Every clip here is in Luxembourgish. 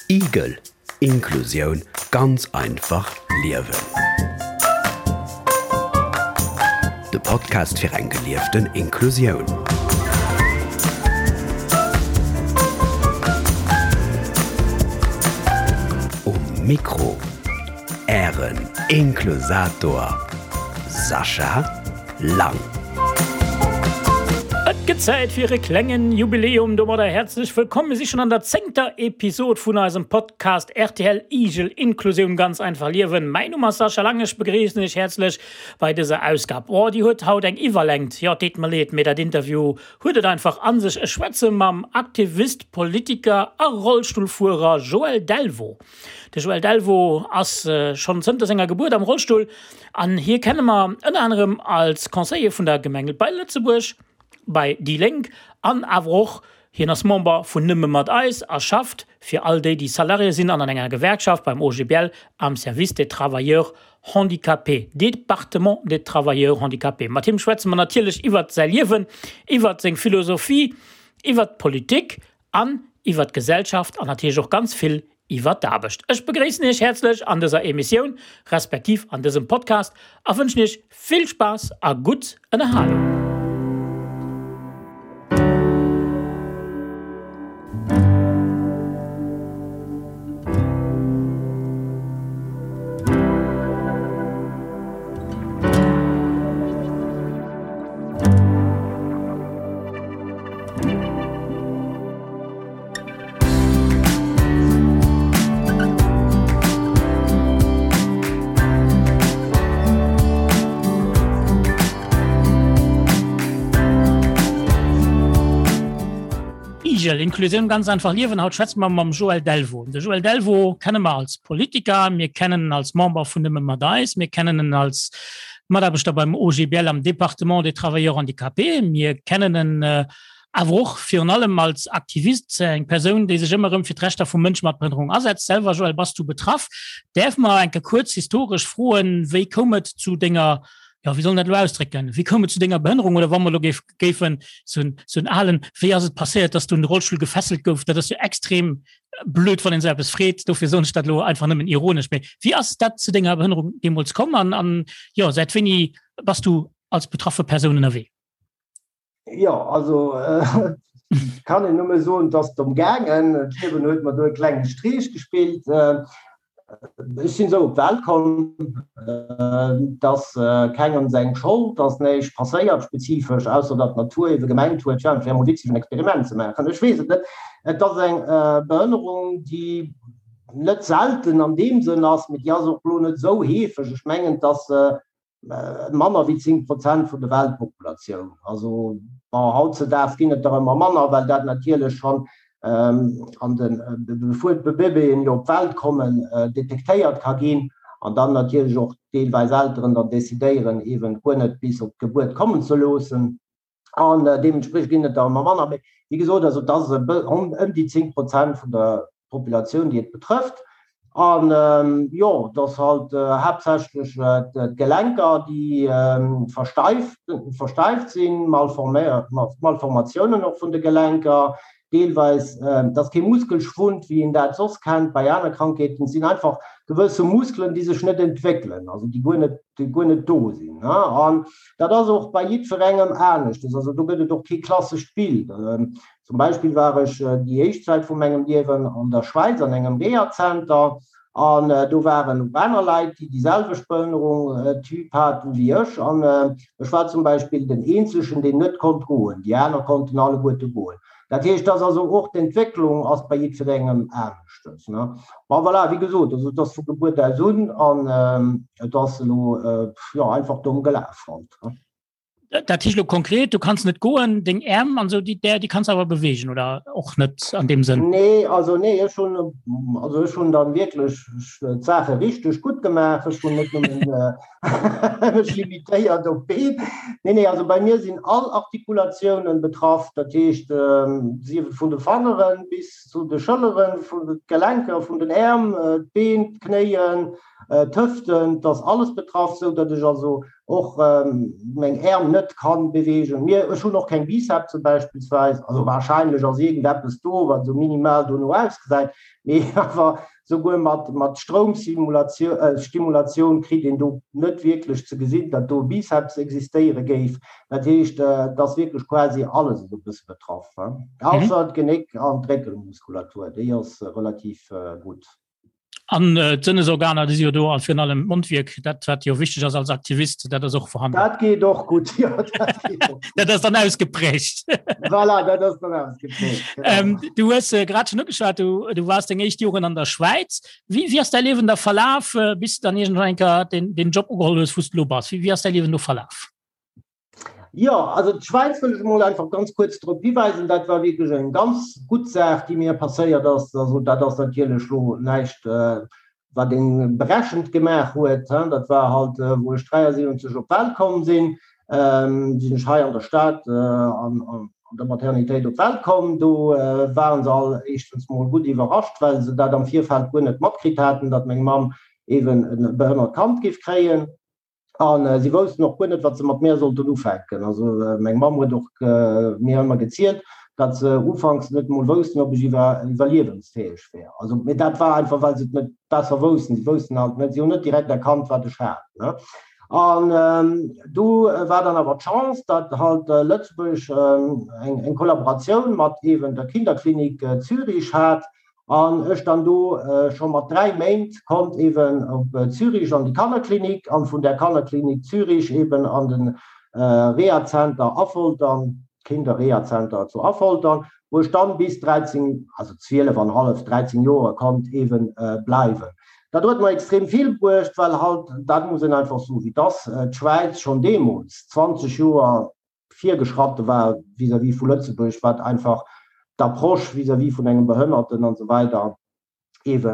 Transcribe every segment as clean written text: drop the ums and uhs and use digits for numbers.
Igel, Inklusioun ganz einfach liewen. De Podcast fir eng gelieften Inklusioun. Um Mikro Ären Inklusator Sascha Lang. Et gëtt Zäit fir e klengen Jubiläum. Domadder häerzlech wëllkomm. Mir si schonn an der zéngter Episod vun eisem Podcast rtl Igel, Inklusioun ganz einfach liewen. Mäin Numm ass Sascha Lang, ech begréissen iech häerzlech bei dëser Ausgab. Oh, déi huet haut eng Iwwerlängt. Jo, et deet mer leed, mee dat Interview huet et einfach a sech. Ech schwätze mam Aktivist, Politiker a Rollstullfuerer Joël Delvaux. De Joël Delvaux ass schonn zënter senger Gebuert am Rollstull an hie kenne mer ënner anerem als Conseiller vun der Gemeng bei Lëtzebuerg, bei déi Lénk an awer och hien ass Member vun Nëmme mat eis a schafft fir all déi, déi Salarié sinn an an enger Gewerkschaft beim OGBL am Service des travailleurs handicapés, Département des travailleurs handicapés. Mat him schwätze mer natierlech iwwert säi Liewen, iwwert seng Philosophie, iwwert d'Politik an iwwer d'Gesellschaft an natierlech och ganz vill iwwer d'Aarbecht. Ech begréissen Iech häerzlech an dëser Emissioun, respektiv an dësem Podcast a wënschen Iech vill Spaass a gutt Ënnerhalung. Igel, Inklusioun ganz einfach liewen. Haut schwätze mer mam Joël Delvaux. De Joël Delvaux kenne mer als Politiker, mir kennen en als Member vun Nëmme mat eis, mir kennen en als Mataarbechter beim OGBL am Département des Travailleurs handicapés. Mir kennen en awer och virun allem als Aktivist, eng Persoun, déi sech ëmmer erëm fir d'Rechter vu Mënsche mat Behënnerung asetzt. Selwer, Joël, bass du betraff. Däerf mer eng Kéier kuerz historesch froen, wéi koum et zu denger, jo, wéi soll een dat elo ausdrécken, wéi koum et zu denger Behënnerung oder wa mer elo géifen sou en alen, wéi ass et passéiert, dass du un de Rollstull gefesselt gouf? Dat ass jo extrem blöd, wann een esou eppes freet, dofir soen ech dat elo einfach nëmmen ironesch. Mee wéi ass dat zu denger Behënnerung deemools komm an, an jo, säit wéini bass du als betraffe Persoun ënnerwee? Jo, also kann een nëmme soen, et ass domm gaangen. D'Liewen huet mer do e klenge Streech gespillt. Ech sinn esou op d'Welt komm, et ass kengem seng Schold, et ass näischt passéiert spezifesch, ausser datt d'Natur ebe gemengt huet, jo, et wär emol witzeg en Experiment ze maachen. Ech weess et net. Et ass eng Behënnerung, déi net selten an deem Sënn ass, mee déi ass och elo net esou heefeg. Ech mengen, et ass manner wéi 10 Prozent vun der Weltpopulatioun. Also bon, hautzedaags ginn et der ëmmer manner, well dat natierlech schonn an de bevor d'Bébéen jo op d'Welt kommen, detektéiert ka ginn an dann natierlech och deelweis Elteren dann decidéieren, eeben guer net bis op d'Gebuert kommen ze loossen. An deementspriechend ginn et der ëmmer manner. Mee wéi gesot, also et ass ëm déi 10 Prozent vun der Populatioun, déi et betrëfft. An jo, et ass halt haaptsächlech d'Gelenker, déi versteift, versteift sinn, Malformatiounen och vun de Gelenker, deelweis, et ass kee Muskelschwund, wéi een dat soss kennt bei aner Krankheeten, et sinn einfach gewësse Muskelen, déi sech net entwéckelen, also déi guer net, déi guer net do sinn. An dat ass och bei jiddwerengem aneschtes, also do gëtt et och kee klassescht Bild. Zum Beispill war ech déi éischt Zäit vu mengem Liewen an der Schwäiz an engem Rehazenter an do waren och aner Leit, déi déi selwecht Behënnerung, Typ haten wéi ech. An ech war zum Beispill den eenzegen, deen net konnt goen, déi aner konnten alleguerte goen. Dat heescht, dass also och d'Entwécklung ass bei jiddwerengem aneschtes. Bon, voilà, wéi gesot, also et ass vu Gebuert aus un an et ass elo, jo, einfach domm gelaf halt. Dat heescht elo konkret, du kanns net goen, deng Äerm an esou, déi, déi kanns awer beweegen oder och net an deem Sënn? Nee, also nee, ech hunn, also ech hunn dann wierklech d'Saache richteg gutt gemaach. Ech hunn net nëmmen mech limitéiert op d'Been. Nee, nee, also bei mir sinn all Artikulatiounen betraff, dat heescht, sief et vun de Fangeren bis zu de Schëlleren, vun de Gelenker vun den Äerm, d'Been, d'Knéien, d'Hëften, et ass alles betraff, sou datt ech also. och meng Äerm net kann beweegen. Mir, ech hunn och keng Bicepse beispillsweis, also wahrscheinlech ass iergendeppes do, wat esou minimal dono ausgesäit, mee awer souguer mat mat Stroumsimulatioun, Stimulatioun kritt een do net wierklech ze gesinn, datt do e Biceps existéiere géif. Dat heescht, et ass wierklech quasi alles esou e bësse betraff, ausser d'Genéck an d'Réckelmuskulatur, déi ass relativ gutt. An äh, d'Sënnesorganer, déi si jo do a virun allem d'Mondwierk, dat wat jo wichteg ass als Aktivist, dat ass och vorhanden. Dat geet och gutt, jo, dat geet och. Dat ass dann ausgeprägt. Voilà, dat ass dann ausgeprägt. Genau. Ähm, du hues äh, grad schon ugeschwat, du, du warst deng éischt Joren an der Schwäiz. Wie, wie ass däi Liewen da verlaf, äh, bis du dann iergendwann eng Kéier den, den Job ugeholl hues, wou s du lo bass? Wie, wie ass däi Liewen do verlaf? Jo, also d'Schwäiz wëll ech emol einfach ganz kuerz drop hiweisen, dat war wierklech eng ganz gutt Saach, déi mir passéiert ass. Also dat ass natierlech elo näischt, wat ee berechent gemaach huet. Dat war halt, wou ech 73 op d'Welt komm sinn, sinn ech hei an der Stad an der Maternitéit op d'Welt komm. Do ware se all éischtens mol gutt iwwerrascht, well se dat am Virfeld guer net matkritt haten, datt meng Mamm eeben e behënnert Kand géif kréien. A si woussten och guer net, wat se mat mär sollten ufänken. Also meng Mamm huet och mir ëmmer gezielt, datt se ufanks net emol woussten, ob ech iwwerliewensfäeg wär. Also, mee dat war einfach, well se et net besser woussten. Si woussten halt net, si hunn net direkt erkannt, wat ech hat, ne. An du war dann awer d'Chance, datt halt Lëtzebuerg eng Kollaboratioun mat eeben der Kinderklinik Zürich hat, An ech dann do scho mat 3 Méint konnt eben op Zürich an déi Kannerklinik an vun där Kannerklinik Zürich eben an den Rehazenter Affoltern, Kinderrehazenter zu Affoltern, wou ech dann bis 13, also 12 an hallef, 13 Joer konnt eben bleiwen. Dat huet mer extrem vill bruecht, well halt, dat muss een einfach soen, wéi et ass, d'Schwäiz schonn deemools 20 Joer virgeschratte war vis-à-vis vu Lëtzebuerg, wat einfach d'Approche vis-à-vis vun engem Behënnerten an esou weider eebe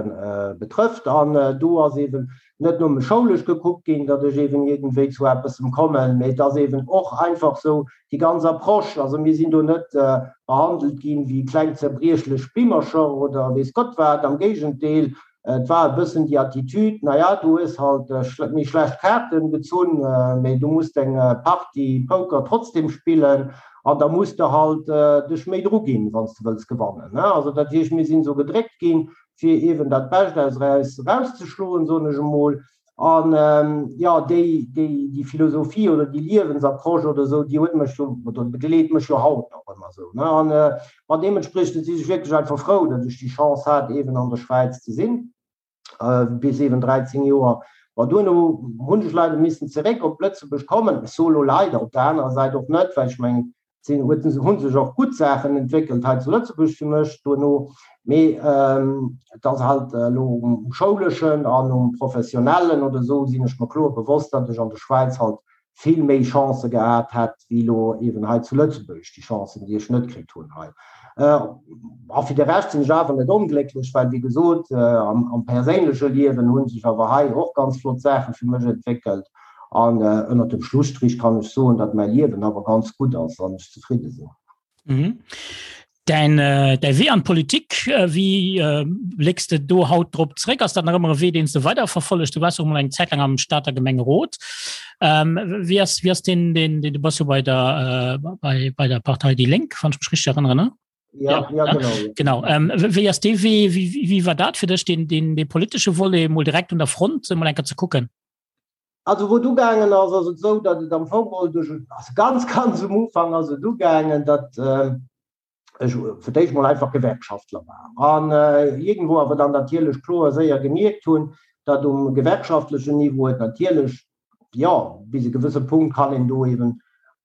betrëfft. An do ass eeben net nëmme schoulesch gekuckt ginn, datt ech eeben iergendwéi zu eppessem kommen, mee et ass eeben och einfach esou déi ganz Approche. Also mir sinn do net behandelt ginn wéi kleng zerbriechlech Bimmercher oder weess Gott wat, am Géigendeel, Et war e bëssen déi Attitude, na ja, du hues halt méi schlecht Kaarten gezunn, mee du muss deng Partie Poker trotzdem spillen an da muss de halt dech méi dru ginn, wann s de wëlls gewannen. Also dat heescht, mir sinn esou gedréckt ginn, fir eeben dat Bescht aus eis erauszeschloen, soen ech emol. An jo, déi, déi, déi Philosophie oder déi Liewensapproche oder esou, déi huet mech jo, oder begleet mech jo haut nach ëmmer esou, ne. An ma deementspriechend si ech wierklech einfach frou, datt ech déi Chance hat, eeben an der Schwäiz ze sinn, bis eeben 13 Joer. Ma duerno hunn ech leider missen zeréck op Lëtzebuerg kommen. Ech soe lo leider, op der anerer Säit och net, well ech mengen, sinn huet hu sech och gutt Saachen entwéckelt hei zu Lëtzebuerg fir mech duerno, mee et ass halt elo um schouleschen an um professionellen oder esou sinn ech mer kloer bewosst, datt ech an der Schwäiz halt vill méi Chancë gehat hätt wéi elo eeben hei zu Lëtzebuerg, déi Chancen déi ech net kritt hunn hei. A fir de Rescht sinn ech awer net onglécklech, well wéi gesot am perséinleche Liewen hu sech awer hei och ganz flott Saache fir mech entwéckelt. An ënnert dem Schlusstrich kann ech soen, datt mäi Liewen awer ganz gutt ass an ech zefridde sinn. Mhm. Däin, äh, däi Wee an d'Politik, äh, wéi äh, blécks de do haut drop zréck? Ass dat nach ëmmer e Wee, deen s de weiderverfollegt? Du waars och mol eng Zäit laang am Stater Gemengerot. Ähm, wéi ass, wéi ass den, den, den, du bass jo bei der, äh, bei, bei der Partei Déi Lénk, wann ech mech richteg erënneren, ne? Ja, ja, ja genau. Ja. Genau. Ähm, wéi ass dee Wee, wéi, wéi war dat fir dech, den, den, de politesche Volet mol direkt un der Front mol eng Kéier ze kucken? Also wou et ugaangen ass, ass et esou, datt et am Fong geholl duerch, also ganz, ganz um Ufank ass et ugaangen, datt ech fir d'éischt mol einfach Gewerkschaftler war an iergendwou awer dann natierlech kloer séier gemierkt hunn, datt um gewerkschaftlechen Niveau et natierlech, jo, bis e gewësse Punkt kann een do eeben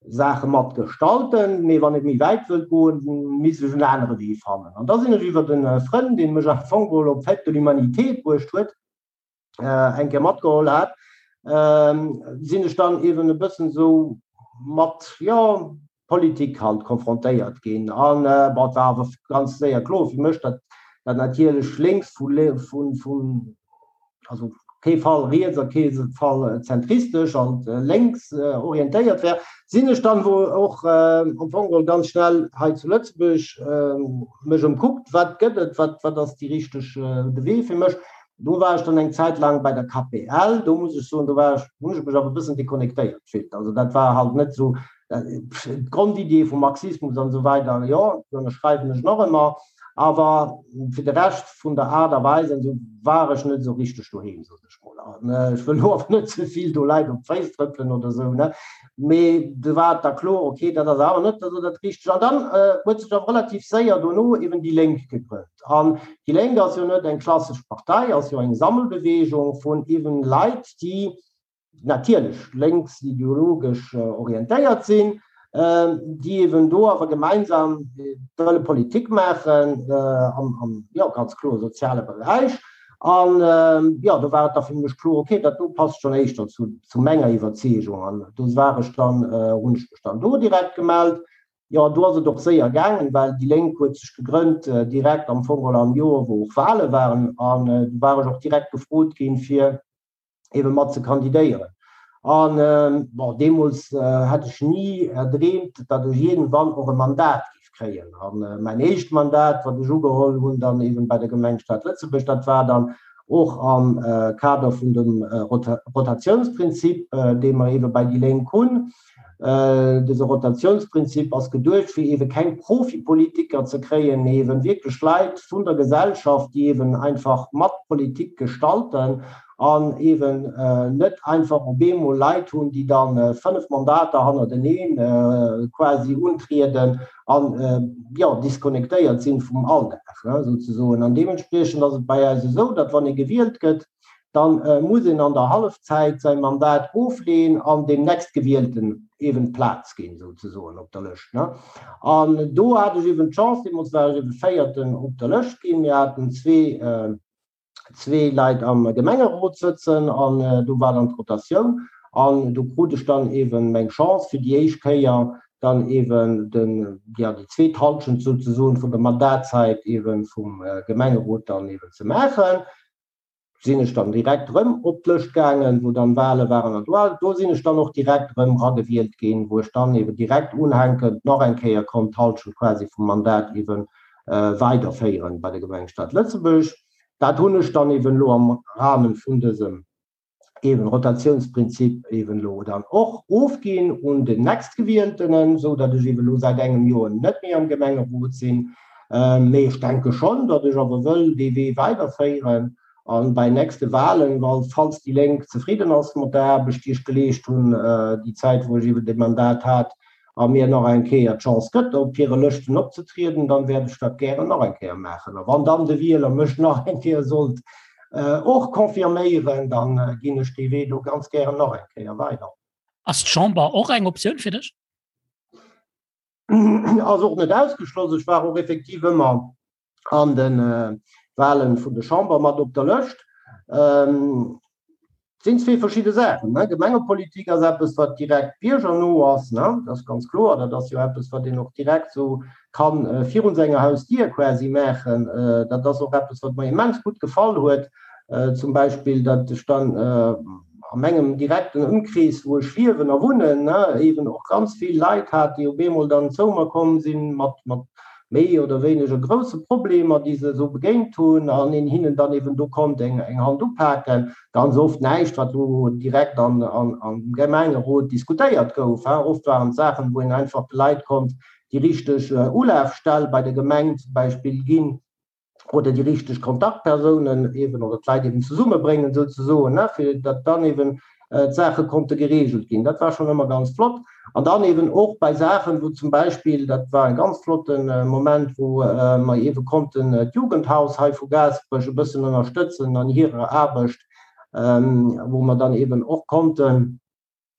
Saache mat gestalten, mee wann et méi wäit wëllt goen, misst ech en anere Wee fannen. An da sinn ech iwwert e Frënn, dee mech am Fong geholl op d'Fête de l'Humanité bruecht huet, eng Kéier matgeholl hat, sinn ech dann eben e bëssen esou mat, jo, Politik halt konfrontéiert ginn. An bon, et war awer ganz séier kloer fir mech, datt dat natierlech lénks vu, vun, vun, also kee Fall riets a kee Fall zentristesch, halt lénks orientéiert wär. Sinn ech dann wou och am Fong geholl ganz schnell hei zu Lëtzebuerg mech ëmkuckt, wat gëtt et, wat, wat ass déi richteg, de Wee fir mech. Do war ech dann eng Zäit laang bei der KPL. Do muss ech soen, do war ech, hunn ech mech awer e bëssen deconnectéiert gefillt. Also dat war halt net esou d'Grondidee vum Marxismus an esou weider, jo, déi ënnerschreiwen ech nach ëmmer, awer fir de Rescht vun der Aart a Weis an esou war ech net esou richteg doheem, sot ech mol. An ech wëll elo awer net ze vill do Leit op d'Féiss trëppelen oder esou, ne, mee do war et da kloer, okay, dat ass awer net esou dat Richtegt. An dann huet sech awer relativ séier dono eben déi Lénk gegrënnt. An déi Lénk ass jo net eng klassesch Partei, ass jo eng Sammelbewegung vun eben Leit, déi natierlech lénks ideologesch orientéiert sinn, déi eben do awer gemeinsam wëlle Politik maachen am, jo, ganz kloer soziale Beräich. An, jo, do war et da fir mech kloer, okay, dat do passt schonn éischter zu menger Iwwerzeegung. An do war ech dann, hunn ech mech dann do direkt gemellt. Jo, do ass et och séier gaangen, well déi Lénk huet sech gegrënnt direkt am Fong geholl am Joer, wou och Wale waren. An do war ech och direkt gefrot ginn, fir ebe mat ze kandidéieren. An bon, deemools hätt ech ni erdreemt, datt ech iergendwann och e Mandat géif kréien. An mäin éischt Mandat, wat ech ugeholl hunn dann eben bei der Gemeng Stad Lëtzebuerg, dat war dann och am Kader vun dem Rotatiounsprinzip, dee mer ebe bei déi Lénk hunn. Dëse Rotatiounsprinzip ass geduecht, fir eebe keng Profipolitiker ze kréien, mee eeben wierklech Leit vun der Gesellschaft, déi eeben einfach mat Politik gestalten an eeben net einfach op eemol Leit hunn, déi da 5 Mandater hannerteneen quasi untrieden an, jo, disconnectéiert sinn vum Alldag souzesoen. An deementspriechend ass et bei eis esou, datt wann ee gewielt gëtt, dann muss een an der Hallefzäit säi Mandat ofleeën an deem Nächstgewielten eeben d'Plaz ginn, souzesoen, op der Lëscht. An do hat ech eeben d'Chance, deemools war ech eebe Véierten op der Lëscht ginn, mir haten zwee, zwee Leit am Gemengerot sëtzen an do war dann d'Rotatioun an do krut ech dann eeben meng Chance fir déi éischt Kéier dann eeben den, ja, déi zweet Hallschent souzesoen vun der Mandatzäit eeben vum Gemengerot dann eeben ze maachen. sinn ech dann direkt erëm op d'Lëscht gaangen, wou dann Wale waren an do, do sinn ech dann och direkt erëm eragewielt ginn, wou ech dann eben direkt unhänkend nach eng Kéier konnt d'Halschent quasi vum Mandat eben weiderféieren bei der Gemeng Stad Lëtzebuerg. Dat hunn ech dann eben elo am Rahmen vun dësem eben Rotatiounsprinzip eben elo dann och ofginn un den Nächstgewieltenen, esou datt ech eben elo säit engem Joer net méi am Gemengerot sinn. Mee ech denke schonn, datt ech awer wëll dee Wee weiderféieren a bei nächste Wahlen, falls déi Lénk zefridden ass mat der Aarbecht, déi ech geleescht hunn déi Zäit, wou ech eeben dee Mandat hat, a mir nach eng Kéier d'Chance gëtt, op hire Lëschten opzetrieden, dann wäert ech dat gären nach eng Kéier maachen. A wann dann de Wieler mech nach eng Kéier sollt och confirméieren, da ginn ech dee Wee do ganz gären nach eng Kéier weider. Ass d'Chamber och eng Optioun fir dech? Ass och net ausgeschloss. Ech war och effektiv ëmmer an de Wahlen vun der Chamber mat op der Lëscht. Et sinn zwee verschidde Saachen. Gemengepolitik ass eppes, wat direkt biergerno ass, dat ass ganz kloer. Dat ass jo eppes, wat een och direkt esou ka virun senger Hausdier quasi maachen. Dat ass och eppes, wat mer immens gutt gefall huet, zum Beispill, datt ech dann a mengem direkten Ëmkrees, wou ech liewen a wunnen, eeben och ganz vill Leit hat, déi op eemol dann zou mer komm sinn mat méi oder wéineger grousse Problemer, déi se esou begéint hunn, an een hinnen dann eeben do konnt eng Hand upaken. Ganz oft näischt, wat elo direkt am Gemengerot diskutéiert gouf. Oft waren et Saachen, wou een einfach de Leit konnt déi richteg Ulafstell bei der Gemeng zum Beispill ginn, oder déi richteg Kontaktpersounen eben oder d'Leit eben zesummebréngen souzesoen, ne, fir datt dann eben d'Saache konnte geregelt ginn. Dat war schonn ëmmer ganz flott. An dann eben och bei Saachen, wou zum Beispill, dat war e ganz flotte Moment, wou mer eebe konnten d'Jugendhaus hei vu Gaasperech e bëssen ënnerstëtzen an hirer Aarbecht, wou mer dann eben och konnten,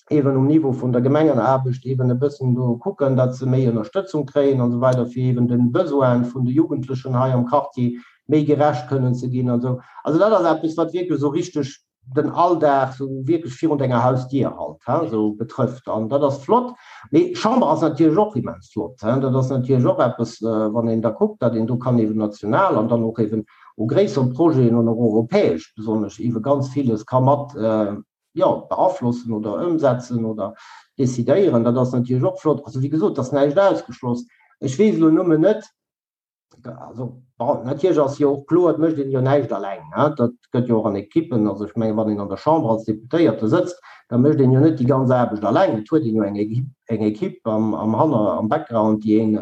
eben um Niveau vun der Gemengenaarbecht eben e bëssen do kucken, datt se méi Ënnerstëtzung kréien an esou weider, fir eben de Besoine vun de Jugendlechen hei am Quartier méi gerecht kënnen ze ginn an esou. Also dat ass eppes, wat wierklech esou richteg den Alldag esou wierklech virun denger Hausdier halt, hein, esou betrëfft. An dat ass flott. Mee Chamber ass natierlech och immens flott, hein. Dat ass natierlech och eppes, wann een da kuckt, datt een do kann eben national an dann och eben u gréissere Projeten an och europäesch besonnesch eebe ganz villes ka mat, jo, beaflossen oder ëmsetzen oder decidéieren, dat ass natierlech och flott. Also wéi gesot, et ass näischt ausgeschloss. Ech weess elo nëmmen net, also bon, natierlech ass jo och kloer, et mécht een jo näischt alleng, ne, dat gëtt jo och an Ekippen, also ech mengen, wann een an der Chamber als Deputéierte sëtzt, da mécht een jo net déi ganz Aarbecht alleng, et huet een jo eng Equipe, eng Equipe am, am Hanner, am Background, déi een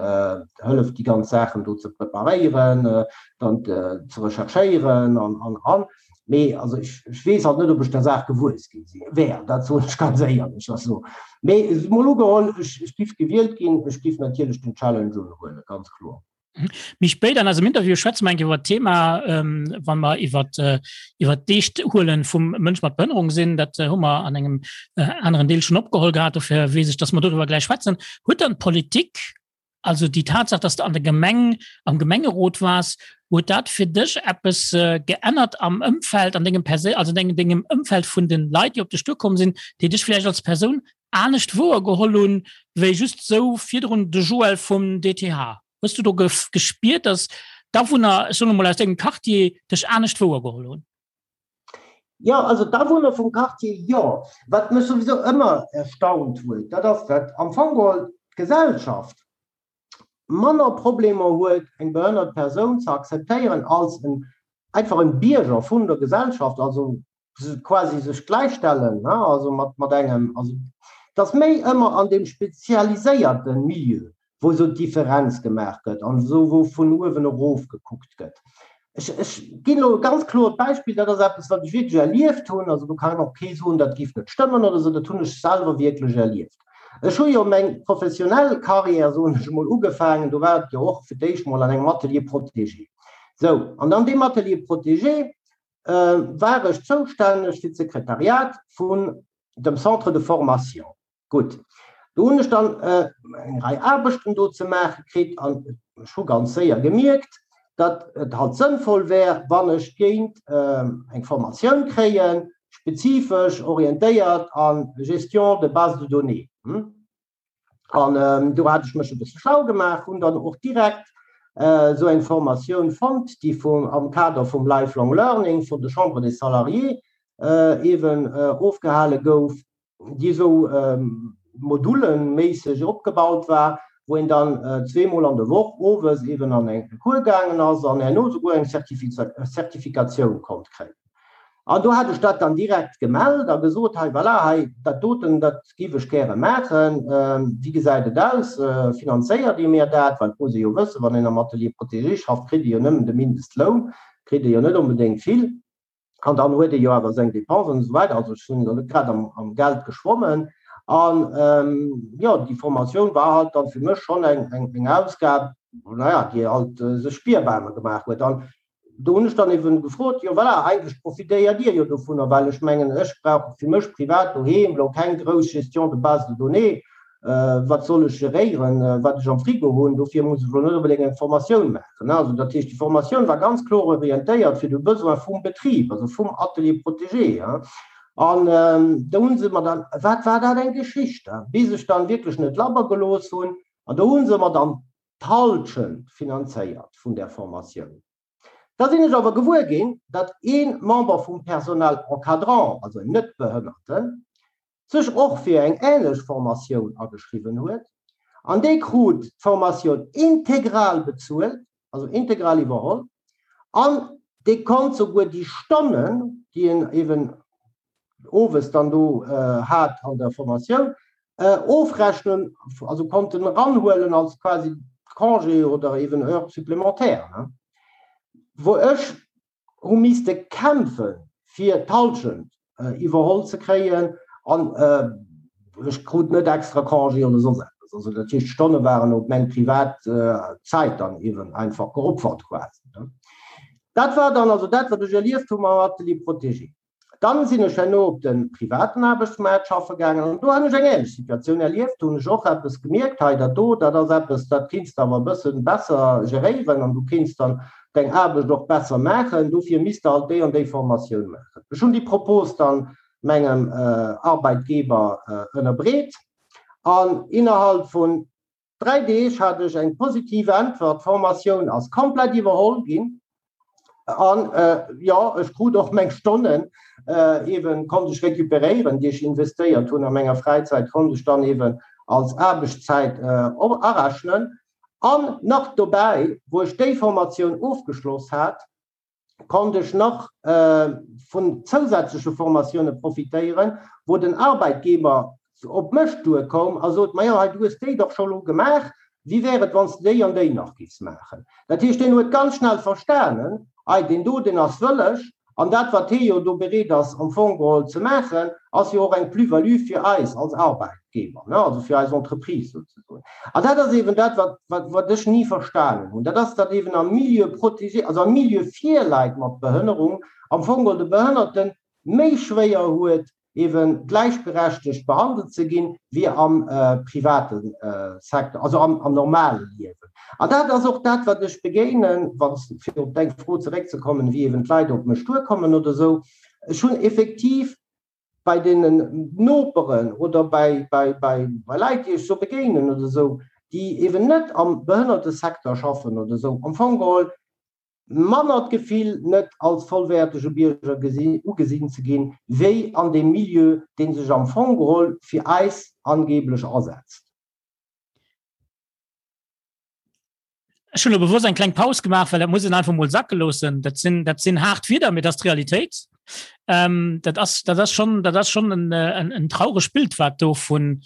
hëlleft, déi ganz Saachen do ze preparéieren, dann ze recherchéieren an, an, an. Mee also ech, ech weess halt net, ob ech der Saach gewuess gi si wär, dat soen ech ganz éierlech. Also, mee emol ugeholl, ech, ech giff gewielt ginn, ech giff natierlech den Challenge unhuelen, ganz kloer. Mhm. Méi spéit an eisem Interview schwätze mer eng Kéier iwwer d'Thema, ähm, wann mer iwwer äh, iwwer d'Eescht huelen vum Mënsch mat Behënnerung sinn. Dat äh, hu mer an engem äh, aneren Deel schon opgeholl gehat, dofir weess ech, dass mer doriwwer gläich schwätzen. Huet dann d'Politik Also déi Tatsaach, dass de an der Gemeng, am Gemengerot waars, huet dat fir dech eppes geännert am Ëmfeld, an dengem Persé also dengem dengem Ëmfeld vun den Leit, déi op dech duerkomm sinn, déi dech vläicht als Persoun anescht wouergeholl hunn, wéi just sou virdrun de Joël vum DTH? Hues du do gespiert, dass d'Awunner, ech soen emol aus dengem Quartier, dech anescht wouergeholl hunn? Jo, also d'Awunner vum Quartier, jo. Wat mech souwisou ëmmer erstaunt huet, dat ass, datt am Fong geholl d'Gesellschaft manner Problemer huet, eng behënnert Persoun ze akzeptéieren als en einfach en Bierger vun der Gesellschaft, also quasi sech gläichstellen, ne, also mat, mat engem, also et ass méi ëmmer an deem spezialiséierte Milieu, wou esou d'Differenz gemaach gëtt an esou wou vun uewen erof gekuckt gëtt. Ech, ech ginn elo e ganz kloert Beispill, dat ass eppes, wat ech wierklech erlieft hunn, also do kann och kee soen, dat géif net stëmmen oder esou, dat hunn ech selwer wierklech erlieft. Ech hu jo meng professionell Carrière, soen ech emol, ugefaangen, do war et jo och fir d'éischt mol an engem Atelier protégé. Sou, an an deem Atelier protégé war ech zoustänneg fir d'Sekretariat vun dem Centre de formation. Gutt, do hunn ech dann eng Rei Aarbechten do ze maache kritt an ech hu ganz séier gemierkt, datt et halt sënnvoll wär, wann ech géint eng Formatioun kréien, spezifesch orientéiert a Gestion de base de données. An do hat ech mech e bësse schlau gemaach, hunn dann och direkt esou eng Formatioun fonnt, déi vum, am Kader vum Lifelong Learning vun der Chambre des Salariés eeben ofgehale gouf. déi esou moduleméisseg opgebaut war, wou een dann zweemol an der Woch owes eben an eng Cours gaangen ass an herno souguer eng Zertifikatioun konnt kréien. An do hat ech dat dann direkt gemellt a gesot, hei voilà, hei dat doten, dat giff ech gäre maachen, wéi gesäit et aus, finanzéiert Dir mir dat? Well et muss ee jo wëssen, wann een am Atelier protégé schafft, kritt ee jo nëmmen de Mindestloun, kritt ee jo net onbedéngt vill. An dann huet ee jo awer seng Dépensen an esou weider. Also ech hunn elo net grad am, am Geld geschwommen. An jo, déi Formatioun war halt dann fir mech schonn eng, eng, eng Ausgab, naja, déi halt sech spierbar gemaach huet. An do hunn ech dann eben gefrot, jo voilà, eigentlech profitéiert Dir jo dovunner, well ech mengen, ech brauch fir mech privat doheem elo keng grouss Gestion de base de données, Wat soll ech geréieren, wat ech am Frigo hunn? Dofir muss ech elo net onbedéngt eng Formatioun maachen. Also dat heescht, déi Formatioun war ganz kloer orientéiert fir de Besoin vum Betrib, also vum Atelier protégé. An do hu se mer dann, wat war dat eng Geschicht, bis ech dann wierklech net labber gelooss hunn, an do hu se mer dann d'Halschent finanzéiert vun där Formatioun. Da sinn ech awer gewuer ginn, datt ee Member vum Personnel encadrant, also en Net-Behënnerten, sech och fir eng änlech Formatioun ageschriwwen huet, an dee krut d'Formatioun integral bezuelt, also integral iwwerholl, an dee konnt souguer déi Stonnen, déi en eeben owes dann do hat an der Formatioun, ofrechnen, also konnt en eranhuelen als quasi Congé oder eeben Heures supplémentaires, wou ech hu misste kämpfe fir d'Halschent iwwerholl ze kréien an ech krut net extra Congé oder soss eppes. Also dat heescht d'Stonne waren op meng privat Zäit dann eeben einfach geopfert quasi. Dat war dann also dat wat ech erlieft hu mam Atelier protégé. Dann sinn ech herno op de privaten Aarbechtsmaart schaffe gaangen an do hunn ech eng ähnlech Situatioun erlieft. Do hunn ech och eppes gemierkt, hei dat do, dat ass eppes, dat kéints de awer e bësse besser geréieren an du kéints dann deng Aarbecht och besser maachen, dofir misst de halt déi an déi Formatioun maachen. Ech hunn déi Propos dann mengem Arbeitgeber ënnerbreet an innerhalb vun 3 Deeg hat ech eng positiv Äntwert, d'Formatioun ass komplett iwwerholl ginn an jo, ech krut och meng Stonnen eeben, konnt ech recuperéieren, déi ech investéiert hunn a menger Fräizäit, konnt ech dann eeben als Aarbechtszäit arechnen. An nach dobäi, wou ech déi Formatioun ofgeschloss hat, konnt ech nach vun zousätzleche Formatioune profitéieren, wou den Arbeitgeber op mech duerkoum a sot, Majo, hei, du hues déi dach scho lo gemaach, wéi wär et, wann s de déi an déi nach giffs maachen? Dat heescht, deen huet ganz schnell verstanen, Ei, deen do, deen ass wëlleg, an dat, wat hee jo do bereet ass am Fong geholl ze maachen, ass jo och eng Plus-value fir eis als Arbeitgeber, ne, also fir eis Entreprise souzesoen. An dat ass eeben dat, wat, wat, wat ech ni verstanen hunn, dat ass, datt eeben am Milieu protégé, also am Milieu fir Leit mat Behënnerung, am Fong geholl de Behënnerten méi schwéier huet, eeben gläichberechtegt behandelt ze ginn, wéi am private Secteur, also am normale Liewen. An dat ass och dat, wat ech begéinen, wann, fir op deng Fro zeréckzekommen, wéi eeben d'Leit op mech duerkommen oder esou. Ech hunn effektiv bei deenen Noperen oder bei, bei, bei, bei Leit, déi ech sou begéinen oder esou, déi eeben net am Behënnertesecteur schaffen oder esou, am Fong geholl manner d'Gefill, net als vollwäertege Bierger ugesinn ze ginn, wéi an deem Milieu, dee sech am Fong geholl fir eis angeblech asetzt. Ech hunn elo bewosst eng kleng Paus gemaach, well dat muss een einfach emol sacke loossen. Dat sinn, dat sinn haart Wieder, mee dat ass d'Realitéit. Ähm, dat ass, dat ass schon, dat ass schon en, en, en trauregt Bild, wat do vun,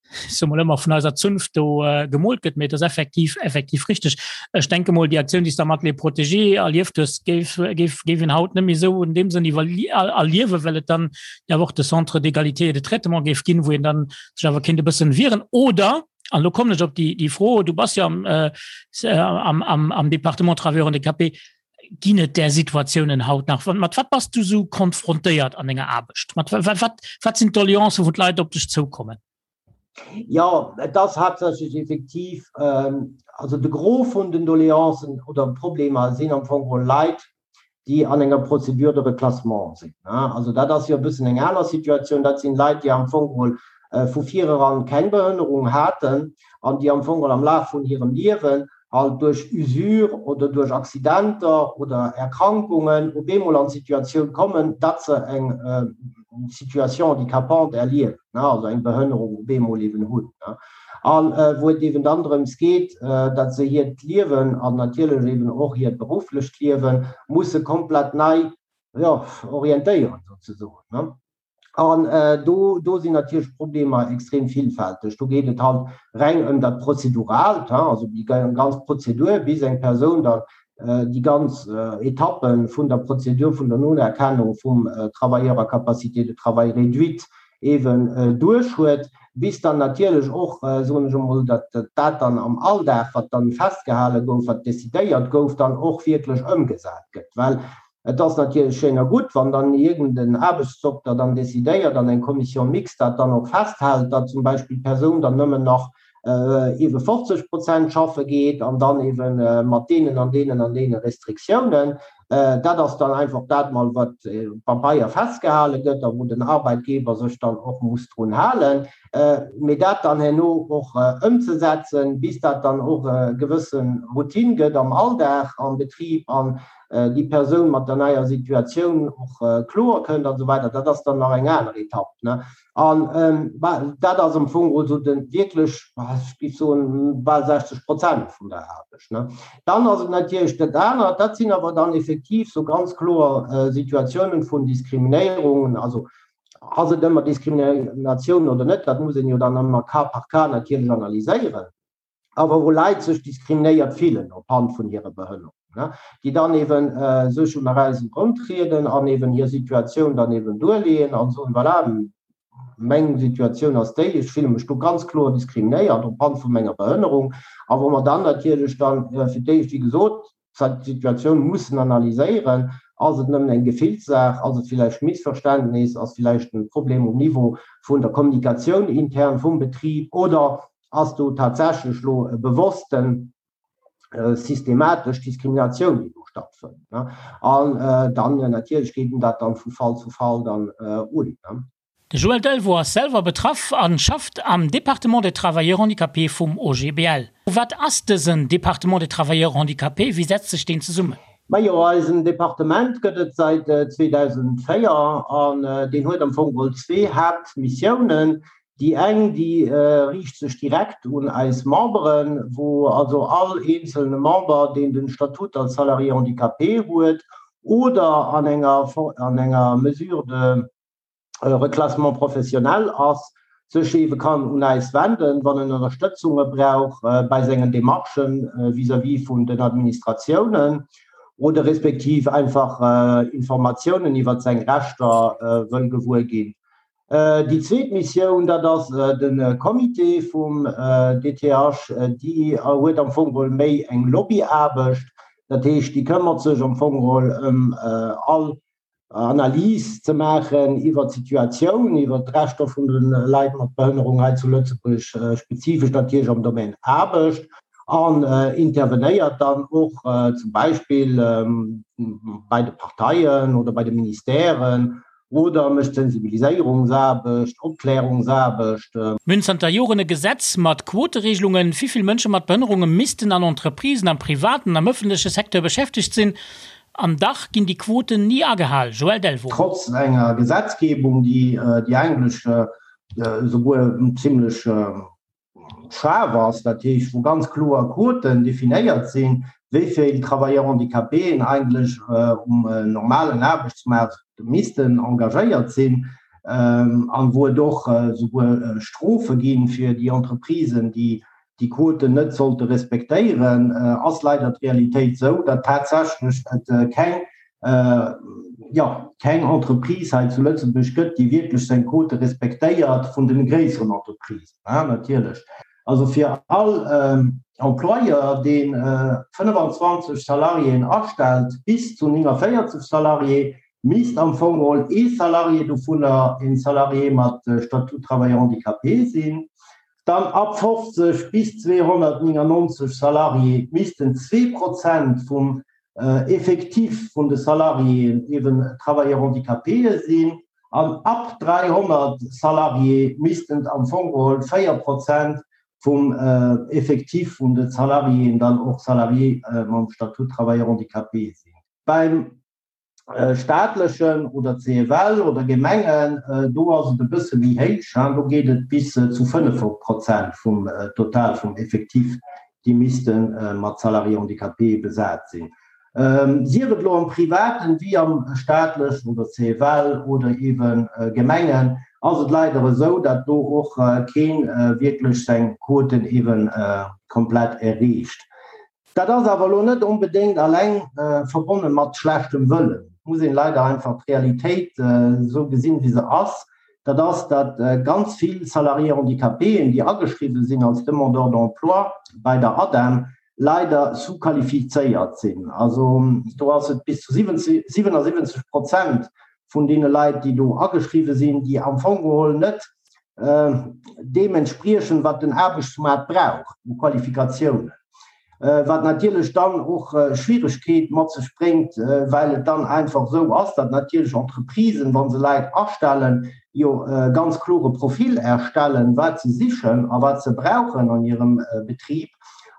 ich sag mal ëmmer vun eiser Zunft do äh, gemoolt gëtt, mee dat ass effektiv, effektiv richteg. Ech denke mol, déi Aktioun, déi s du am Atelier Protégé erlieft hues, géif, géif, géif een haut net méi esou in deem Sënn erliewen, well et dann ja och de Centre d'égalité et de traitement géif ginn, wou een dann sech awer kéint e bëssen wieren. Oder, an elo kommen ech op déi, déi Fro, du bass jo am, äh, am, am, am Département Travailleurs handicapés, Ginn et där Situatiounen haut nach? Mat wat bass du sou konfrontéiert an denger Aarbecht? Mat wat, wat sinn d'Doleancen, wou d'Leit op dech zoukommen? Jo, et ass haaptsächlech effektiv, also de Gros vun den Doleancen oder Problemer sinn am Fong geholl Leit, déi an enger Procédure de reclassement sinn. Also dat ass jo e bëssen eng aner Situatioun. Dat sinn Leit, déi am Fong geholl vu vireran keng Behënnerung haten an déi am Fong geholl am Laf vun hirem Liewen halt duerch Usure oder duerch Accidenter oder Erkrankungen op eemol an d'Situatioun kommen, datt se eng Situation handicapante erliewen, also eng Behënnerung op eemol eben hunn. A wou et eben dann drëms geet, datt se hiert Liewen an natierlech eben och hiert berufflecht Liewe musse komplett nei, jo, orientéieren souzesoen. An do, do sinn natierlech d'Problemer extrem villfälteg. Do geet et halt reng ëm dat Prozeduraalt, also déi ganz Prozedur, bis eng Persoun dann déi ganz Etappe vun der Prozedur vun der Nonerkennung vum Travailleur à capacité de travail réduite eeben duerch huet, bis dann natierlech och, soen ech emol, datt dat dann am Alldag, wat dann festgehale gouf, wat decidéiert gouf, dann och wierklech ëmgesat gëtt. Well Et ass natierlech schéin a gutt, wann dann iergend en Aarbechtsdokter dann decidéiert an eng Commission mixte dat dann och festhält, datt zum Beispill d'Persoun dann nëmmen nach eebe 50 Prozent schaffe geet an dann eebe mat deenen an deenen an deene Restriktiounen. Dat ass dann einfach dat mol, wat op Pabeier festgehale gëtt a wou den Arbeitgeber sech dann och muss drun halen. Mee dat dann herno och ëmzesetzen, bis dat dann och e gewësse Routine gëtt am Alldag am Betrib an déi Persoun mat der neier Situatioun och kloer kënnt an esou weider, dat ass dann nach eng aner Etapp. An dat ass am Fong also de wierklech, ech géif soen, bal 60 Prozent vun der Aarbecht. Dann ass et natierlech dat anert, dat sinn awer dann effektiv sou ganz kloer Situatiounen vun Diskriminéierungen. Also ass et ëmmer Diskriminatioun oder net, dat muss een jo dann ëmmer cas par cas natierlech analyséieren. awer wou Leit sech diskriminéiert fillen op Hand vun hirer Behënnerung, déi dann eben sech un eis eruntrieden an eben hir Situatioun dann eben duerleeën an soen, voilà, meng Situatioun ass déi, ech fille mech do ganz kloer diskriminéiert op Hand vu menger Behënnerung, a wou mer dann natierlech dann fir d'éischt, wéi gesot, d'Situatioun mussen analyséieren, Ass et nëmmen eng Gefillssaach? Ass et villäicht Missverständnis? Ass villäicht e Problem um Niveau vun der Kommunikatioun intern vum Betrib? Oder ass do tatsächlech elo e bewossten, systematesch Diskriminatioun, déi do stattfënnt? An dann natierlech geet een dat dann vu Fall zu Fall dann un. De Joël Delvaux ass selwer betraff an schafft am Département des Travailleurs Handicapés vum OGBL. Wat ass dësen Département des Travailleurs Handicapés? Wéi setzt sech deen zesummen? Majo, eisen Departement gëtt et säit 2004 an deen huet am Fong geholl zwee Haaptmissiounen. Déi eng, déi riicht sech direkt un eis Memberen, wou also all eenzelne Member, deen den Statut als Salarié handicapé huet oder an enger an enger Mesure de Reclassement professionnel ass, sech eebe kann un äis wenden, wann en Ënnerstëtzunge brauch bei sengen Demarchen vis-à-vis vun den Administratiounen oder respektiv einfach Informatiounen iwwert seng Rechter wëll gewuer ginn. Déi zweet Missioun, dat ass de Comité vum DTH. Déi huet am Fong geholl méi eng Lobbyaarbecht. Dat heescht, déi këmmert sech am Fong geholl ëm all Analys ze maachen iwwert d'Situatioun, iwwert d'Rechter vun de Leit mat Behënnerung hei zu Lëtzebuerg, spezifesch natierlech am Domaine Aarbecht, an intervenéiert dann och zum Beispill bei de Parteien oder bei de Ministèren oder mécht Sensibiliséierungsaarbecht, Opklärungsaarbecht. Mir hunn zanter Joren e Gesetz mat Quoteregelungen, wéi vill Mënsche mat Behënnerunge missten an Entreprisen am privaten an am ëffentleche Secteur beschäftegt sinn. An dach ginn déi Quoten ni agehal. Joël Delvaux. Trotz enger Gesetzgebung, déi déi eigentlech esouguer zimlech schaarf ass, dat heescht wou ganz kloer Quoten definéiert sinn, wéi vill Travailleurs handicapéen eigentlech um normalen Aarbechtsmaart missten engagéiert sinn, an wou et och esouguer Strofe gi fir déi Entreprisen, déi déi Quoten net sollte respektéieren, ass leider d'Realitéit esou, datt tatsächlech et keng, jo, keng Entreprise hei zu Lëtzebuerg gëtt, déi wierklech seng Quote respektéiert, vun de gréisseren Entreprisen natierlech. Also fir all Employeur, dee 25 Salariéen astellt, bis zu 49 Salarié, misst am Fong geholl ee Salarié dovunner een Salarié mat Statut travailleur handicapé sinn. Dann ab 50 bis 299 Salarié missten 2 Prozent vum Effectif vun de Salariéen eeben Travailleurs handicapéë sinn an ab 300 Salarié missten et am Fong geholl 4 Prozent vum Effectif vun de Salariéen dann och Salarié mam Statut travailleur handicapé sinn. Beim staatlechen oder CFL oder Gemengen, do ass et e bësse méi héich, do geet et bis zu 5 Prozent vum Total vum Effectif, déi misste mat Salariés handicapés besat sinn. Sief et elo am Privaten wéi am staatlechen oder CFL oder eebe Gemengen, ass et leider esou, datt do och kee wierklech seng Quoten eebe komplett erreecht. Dat ass awer elo net onbedéngt alleng verbonne mat schlechtem Wëllen. Et muss een leider einfach d'Realitéit esou gesinn, wéi se ass. Dat ass, datt ganz vill Salariés handicapéen, déi ageschriwwen sinn als Demandeurs d'emploi bei der ADEM, leider sous-qualifizéiert sinn. Also do ass et bis zu 77 Prozent vun deene Leit, déi do ageschriwwen sinn, déi am Fong geholl net deem entspriechen, wat den Aarbechtsmaart brauch u Qualifikatiounen, wat natierlech dann och Schwieregkeet mat sech bréngt, well et dann einfach esou ass, datt natierlech Entreprisen, wa se Leit astellen, jo e ganz klore Profil erstellen, wat se sichen a wat se brauchen an hirem Betrib,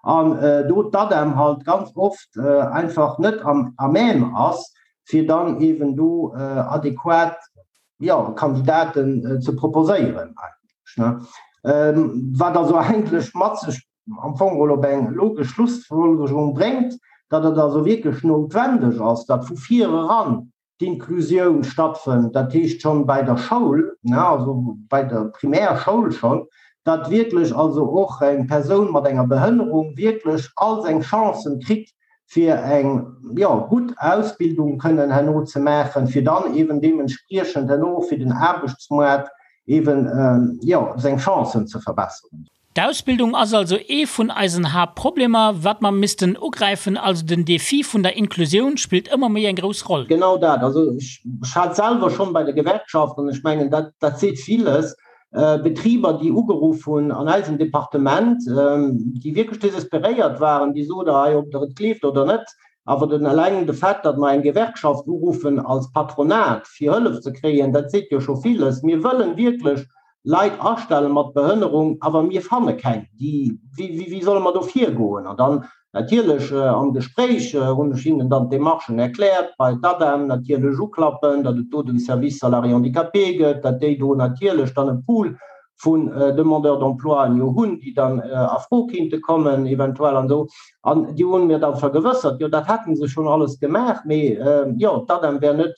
an do d'ADEM halt ganz oft einfach net am à même ass, fir dann eeben do adequat jo, Kandidaten ze proposéieren eigentlech, ne? Wat also eigentlech mat sech am Fong geholl op eng logesch Schlussfolgerung bréngt, datt et also wierklech noutwendeg ass, datt vu vir eran d'Inklusioun stattfënnt, dat heescht schonn bei der Schoul, ne, also bei der Primärschoul schonn, datt wierklech also och eng Persoun mat enger Behënnerung wierklech all seng Chancen kritt, fir eng, jo, gutt Ausbildung kënnen herno ze maachen, fir dann eeben deementspriechend herno och fir den Aarbechtsmoart eeben, jo, seng Chancen ze verbesseren. D'Ausbildung ass also ee vun eisen Haaptproblemer, wat mer missten ugräifen. Also den Défi vun der Inklusioun spillt ëmmer méi eng grouss Roll. Genau dat. Also ech hat selwer schonn bei der Gewerkschaft, an ech mengen, dat, dat seet villes, Betriber, déi ugeruff hunn an eisem Departement, déi wierklech desesperéiert waren, déi soten, hei, ob Der et gleeft oder net, awer den eleng de Fait, datt mer eng Gewerkschaft uruffen als Patronat, fir Hëllef ze kréien, dat seet jo scho villes. Mir wëllen wierklech Leit astelle mat Behënnerung, awer mir fanne keng. Déi, wéi, wéi solle mer do virgoen? An dann Natierlech am Gespréich hunn ech hinnen dann d'Demarchen erkläert, bei d'ADEM natierlech uklappen, datt et do den Service Salariés Handicapés gëtt, datt déi do natierlech dann e Pool. vun Demandeurs d'emploien jo hunn, déi dann a Fro kéinte kommen eventuell an esou. An déi hunn mir da vergewëssert, jo dat hätte se schonn alles gemaach, mee jo d'ADEM wär net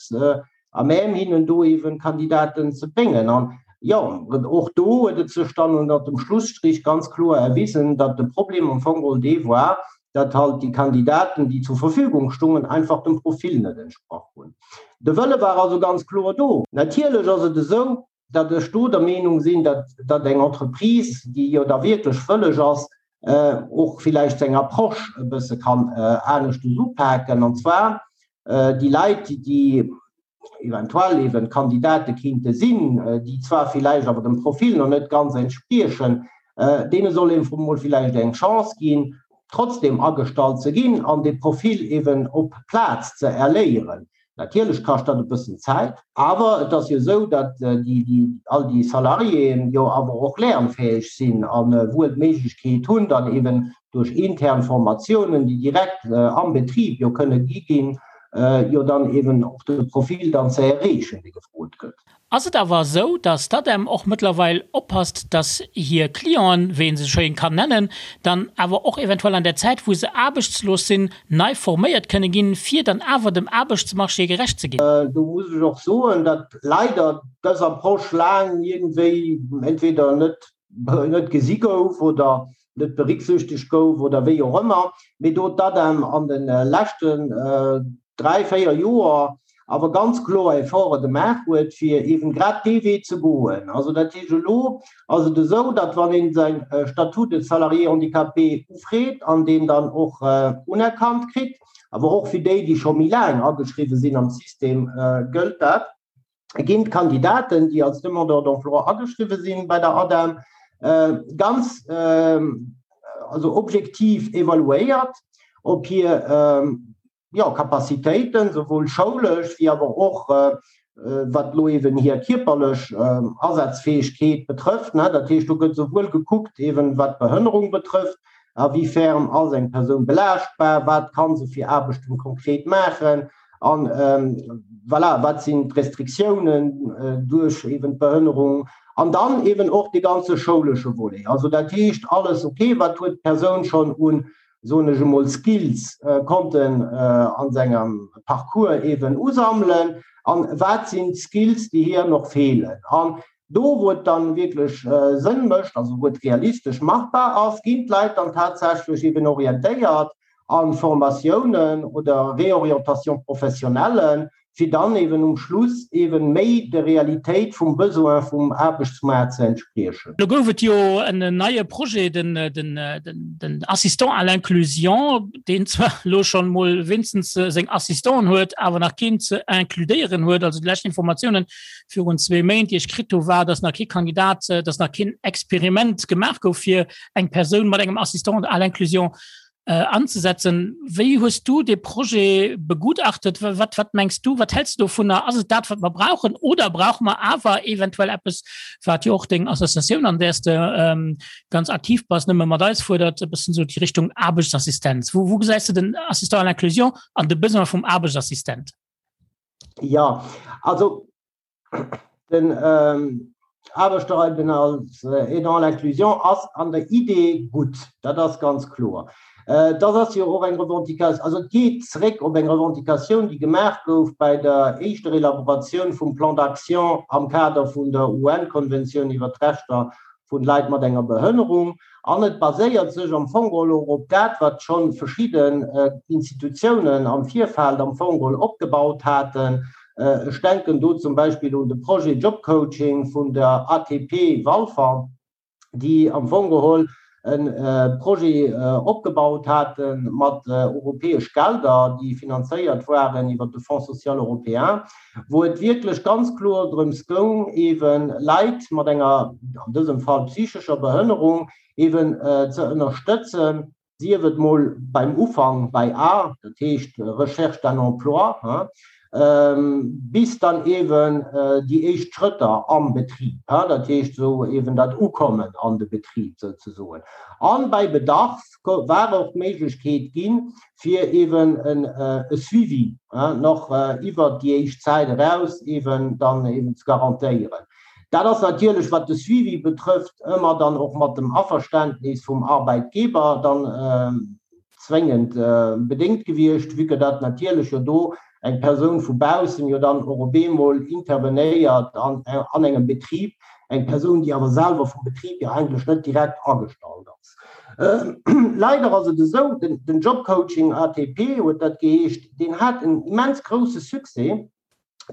à même hinnen do eeben Kandidaten ze bréngen. An jo, och do huet et sech dann ënner dem Schlusstrich ganz kloer erwisen, datt de Problem am Fong geholl dee war, datt halt déi Kandidaten, déi zur Verfügung stungen, einfach dem Profil net entsprach hunn. De Wëlle war also ganz kloer do. Natierlech ass et esou, datt ech do der Meenung sinn, datt datt eng Entreprise, déi jo da wierklech wëlleg ass, och villäicht seng Approche e bësse kann aneschtes upaken, an zwar déi Leit, déi eventuell eben Kandidate kinnte sinn, déi zwar villäicht awer dem Profil nach net ganz entspriechen, deene soll een emol villäicht eng Chance ginn, trotzdem agestallt ze ginn an dee Profil eben op Plaz ze erléieren. Natierlech kascht dat e bëssen Zäit, awer et ass jo esou, datt déi, all déi Salariéen jo awer och lernfäeg sinn a wuel d'Méiglechkeet hunn, dann eben duerch intern Formatiounen, déi direkt am Betrib jo kënne gi ginn, jo dann eben och de Profil dann ze erreechen, dee gefrot gëtt. Ass et awer esou, dass d'ADEM och mëttlerweil oppasst, dass hir Clienten, wéi ee se schéin kann nennen, dann awer och eventuell an der Zäit, wou se aarbechtslos sinn, nei forméiert kënne ginn, fir dann awer dem Aarbechtsmarché gerecht ze ginn? Do muss ech och soen, datt leider dës Approche laang iergendwéi entweder net net gesi gouf oder net berücksichtegt gouf oder wéi och ëmmer, mee do d'ADEM an de leschten 3, 4 Joer awer ganz kloer Efforte gemaach huet, fir eeben grad dee Wee ze goen. Also dat heescht, elo ass et esou, datt wann ee säi Statut de salarié handicapé ufreet an deen dann och unerkannt kritt, awer och fir déi, déi scho méi laang ageschriwwen sinn am System, gëllt dat, ginn d'Kandidaten, déi als Demandeur d'emploi ageschriwwen sinn bei der ADEM, ganz also objektiv evaluéiert, ob hir jo, Capacitéiten, souwuel schoulesch wéi awer och wat elo eeben hir kierperlech Asazfäegkeet betrëfft. Dat heescht, do gëtt souwuel gekuckt eeben, wat d'Behënnerung betrëfft, a wéi ferm ass eng Persoun belaaschtbar, wat ka se fir Aarbechten konkret maachen an voilà, wat sinn d'Restriktiounen duerch eeben d'Behënnerung an dann eeben och dee ganze schoulesche Volet. Also dat heescht alles, okay, wat huet d'Persoun schonn un soen ech emol, Skills konnten a sengem Parcours eeben usammelen an wat sinn d'Skills, déi hir nach feelen. An do, wou et dann wierklech Sënn mécht, also wou et realistesch machbar ass, ginn d'Leit dann tatsächlech eeben orientéiert a Formatiounen oder Réorientation professionnelle, fir dann eben um Schluss eben méi der Realitéit vum Besoin vum Aarbechtsmaart ze entspriechen. Lo gouf et jo en neie Projet, den Assistant à l'inclusion, deen zwar elo schonn emol wéinstens seng Assistanten huet, awer nach keen ze includéieren huet. Also déi lescht Informatiounen virun zwee Méint, déi ech kritt hu, war, datt nach kee Kandidat, datt nach keen Experiment gemaach gouf, fir eng Persoun mat engem Assistant à l'inclusion anzesetzen. Wéi hues du dee Projet begutachtet? Wat, wat mengs du, wat hälls du dovunner? Ass et dat, wat mer brauchen oder brauche mer awer eventuell eppes, wat jo och deng Associatioun, an där s de ähm, ganz aktiv bass, nëmme mat eis fuerdert, e bëssen esou déi Richtung Aarbechtsassistenz. Wou, wou gesäis du den Assistant à l'inclusion an de Besoin vum Aarbechtsassistent? Ja, also Den Aarbechter eben als Aidant à l'inclusion ass an der Idee gutt, dat ass ganz kloer. Dat ass jo och eng Revendication, also et geet zeréck op eng Revendicatioun, déi gemaach gouf bei der éischter Elaboratioun vum Plan d'action am Kader vun der UN-Konventioun iwwert d'Rechter vun Leit mat enger Behënnerung. An et baséiert sech am Fong geholl och op dat, wat scho verschidden Institutiounen am Virfeld am Fong geholl opgebaut haten. Ech denken do zum Beispill un de Projet Job Coaching vun der ATP Walfer, déi am Fong geholl e Projet opgebaut hate mat europäesch Gelder, déi finanzéiert waren iwwert de Fonds social européen, wou et wierklech ganz kloer drëms goung, eebe Leit mat enger, an dësem Fall psychescher Behënnerung, eeben ze ënnerstëtzen, sief et mol beim Ufank bei A, dat heescht Recherche d'un emploi, bis dann eeben déi éischt Schrëtter am Betrib, dat heescht esou eeben dat Ukommen an de Betrib souzesoen. A bei Bedarf war och d'Méiglechkeet ginn, fir eeben e Suivi nach iwwert déi éischt Zäit eraus eeben dann eeben ze garantéieren. Dat ass natierlech, wat de Suivi betrëfft, ëmmer dann och mat dem Averständnis vum Arbeitgeber dann zwéngend bedéngt gewiescht, vue que dat natierlech jo do eng Persoun vu baussen jo dann och op eemol intervenéiert an an engem Betrib, eng Persoun, déi awer selwer vum Betrib jo eigentlech net direkt agestallt ass. Leider ass et esou, den Jobcoaching ATP huet dat geheescht, deen hat en immens grousse Succès,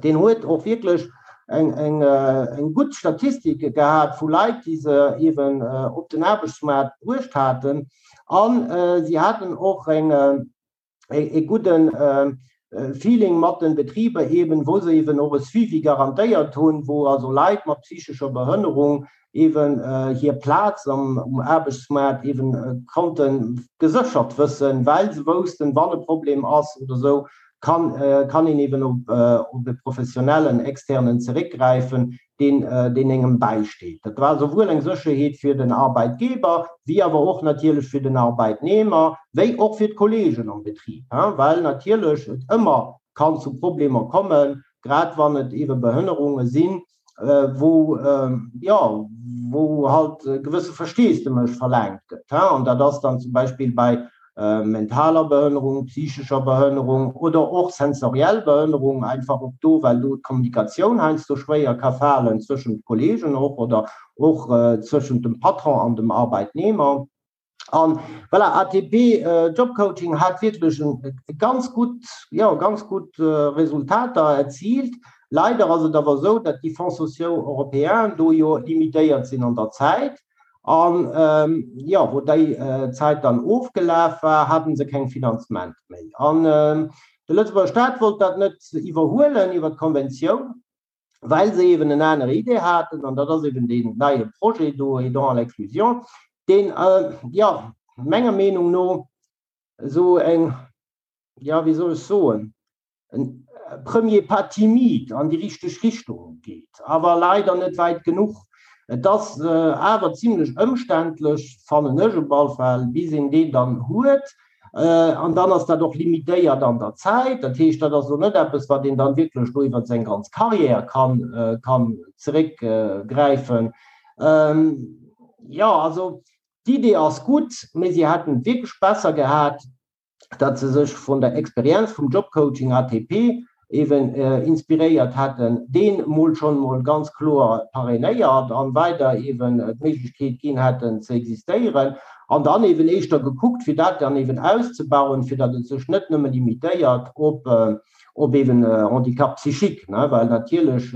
deen huet och wierklech eng, eng, eng gutt Statistik gehat vu Leit, déi se eeben op den Aarbechtsmaart bruecht haten. An si haten och eng, e gudden Feeling mat den Betriber eben, wou se eben och e Suivi garantéiert hunn, wou also Leit mat psychescher Behënnerung eben hir Plaz am um Aarbechtsmaart eben konnte geséchert wëssen, well se woussten, wann e Problem ass oder esou, kann kann een eben op op e professionellen Externen zeréckgräifen, deen deen engem bäisteet. Dat war souwuel eng Sécherheet fir den Arbeitgeber wéi awer och natierlech fir den Arbeitnehmer, wéi och fir d'Kollegen am Betrib, well natierlech et ëmmer kann zu Problemer kommen, grad wann et eebe Behënnerunge sinn, wou, jo, wou halt e gewësse Versteesdemech verlaangt gëtt. An dat ass dann zum Beispill bei mentaler Behënnerung, psychescher Behënnerung oder och sensoriell Behënnerung, einfach och do, well do d'Kommunikatioun heiansdo schwéier ka falen zwëschent Kollegen och oder och zwëschent dem Patron an dem Arbeitnehmer. An voilà, ATP Jobcoaching hat wierklech e ganz gutt, jo, ganz gutt Resultater erziilt. Leider ass et awer esou, datt déi Fonds sociaux européens do jo limitéiert sinn an der Zäit. An jo, wou déi Zäit dann ofgelaf war, haten se keng Finanzement méi. An de Lëtzebuerger Staat wollt dat net iwwerhuelen iwwer d'Konventioun, well se eeben en anere Idee haten, an dat ass eeben deen neie Projet do, Aidants à l'inclusion, deen, jo, menger Meenung no esou eng, jo, wéi soll ech soen, en premier pas timide an déi richteg Richtung geet, awer leider net wäit genuch. Et ass awer zimlech ëmständlech, fannen ech op all Fall, bis een deen dann huet. An dann ass dat och limitéiert an der Zäit. Dat heescht, dat ass elo net eppes, wat een dann wierklech do iwwer seng ganz Carrière kann, kann zeréckgräifen. Jo, also d'Idee ass gutt, mee si hätten et wierklech besser gehat, datt se sech vun der Experienz vum Jobcoaching ATP eben inspiréiert hätten, deen mol schonn mol ganz kloer parrainéiert an weider eben d'Méiglechkeet ginn hätten ze existéieren an dann eben éischter gekuckt fir dat dann eben auszebauen, fir datt et sech net nëmme limitéiert op op eben Handicap psychique, ne, well natierlech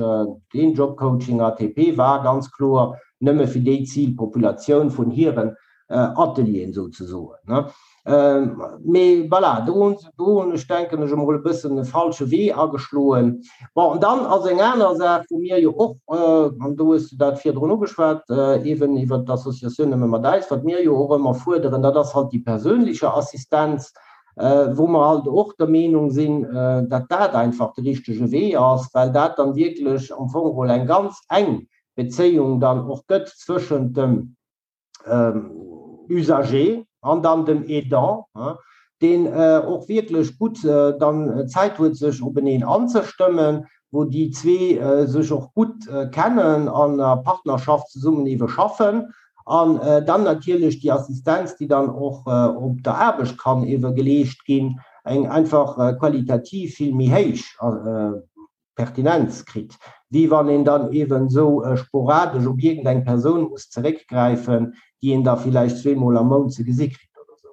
deen Jobcoaching ATP war ganz kloer nëmme fir déi Zilpopulatioun vun hiren Atelieren souzesoen. Mee voilà, do hunn se, do hunn ech, denken ech emol, e bëssen e falsche Wee ageschloen. Bon, an dann ass eng aner Saach, wou mir jo och, an do hues du dat virdrun ugeschwat, eeben iwwert d'Associatioun Nëmme mat äis, wat mir jo och ëmmer fuerderen, dat ass halt déi perséinliche Assistenz, wou mer halt och der Meenung sinn, datt dat einfach de richtege Wee ass, well dat dann wierklech am Fong geholl eng ganz eng Bezéiung dann och gëtt zwëschent dem Usager an dann dem Aidant, deen och wierklech gutt dann Zäit huet sech openeen anzestëmmen, wou déi zwee sech och gutt kennen an a Partnerschaft zesummen ewe schaffen an dann natierlech déi Assistenz, déi dann och op der Aarbecht kann ewe geleescht ginn, eng einfach qualitativ vill méi héich Pertinenz kritt, wéi wann een dann eeben esou sporadesch op iergendeng Persoun muss zeréckgräifen, déi een da villäicht zweemol am Mount ze gesi kritt oder esou.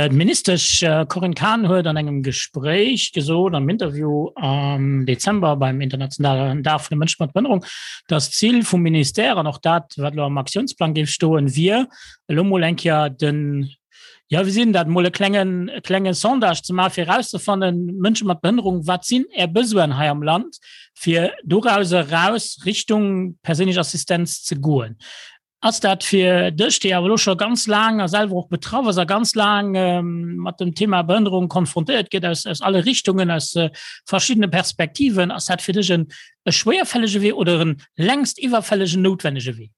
D'Ministesch Corinne Cahen huet an engem Gespréich gesot, am Interview am Dezember beim internationalen Dag vun de Mënsche mat Behënnerung, datt d'Zil vum Ministère an och dat, wat elo am Aktiounsplang géif stoen, wier, elo mol eng Kéier den Ja, wéi sinn dat mol e klengen, e klenge Sondage ze maachen, fir erauszefannen, Mënsche mat Behënnerung, wat sinn Är Besoinen hei am Land, fir doraus eraus Richtung perséinlech Assistenz ze goen. Ass dat fir dech, déi awer elo scho ganz laang a selwer och betraff ass a ganz laang mat dem Thema Behënnerung konfrontéiert gëtt aus, aus alle Richtungen, aus verschiddene Perspektiven, ass dat fir dech en e schwéierfällege Wee oder en längst iwwerfällegen, noutwennege Wee?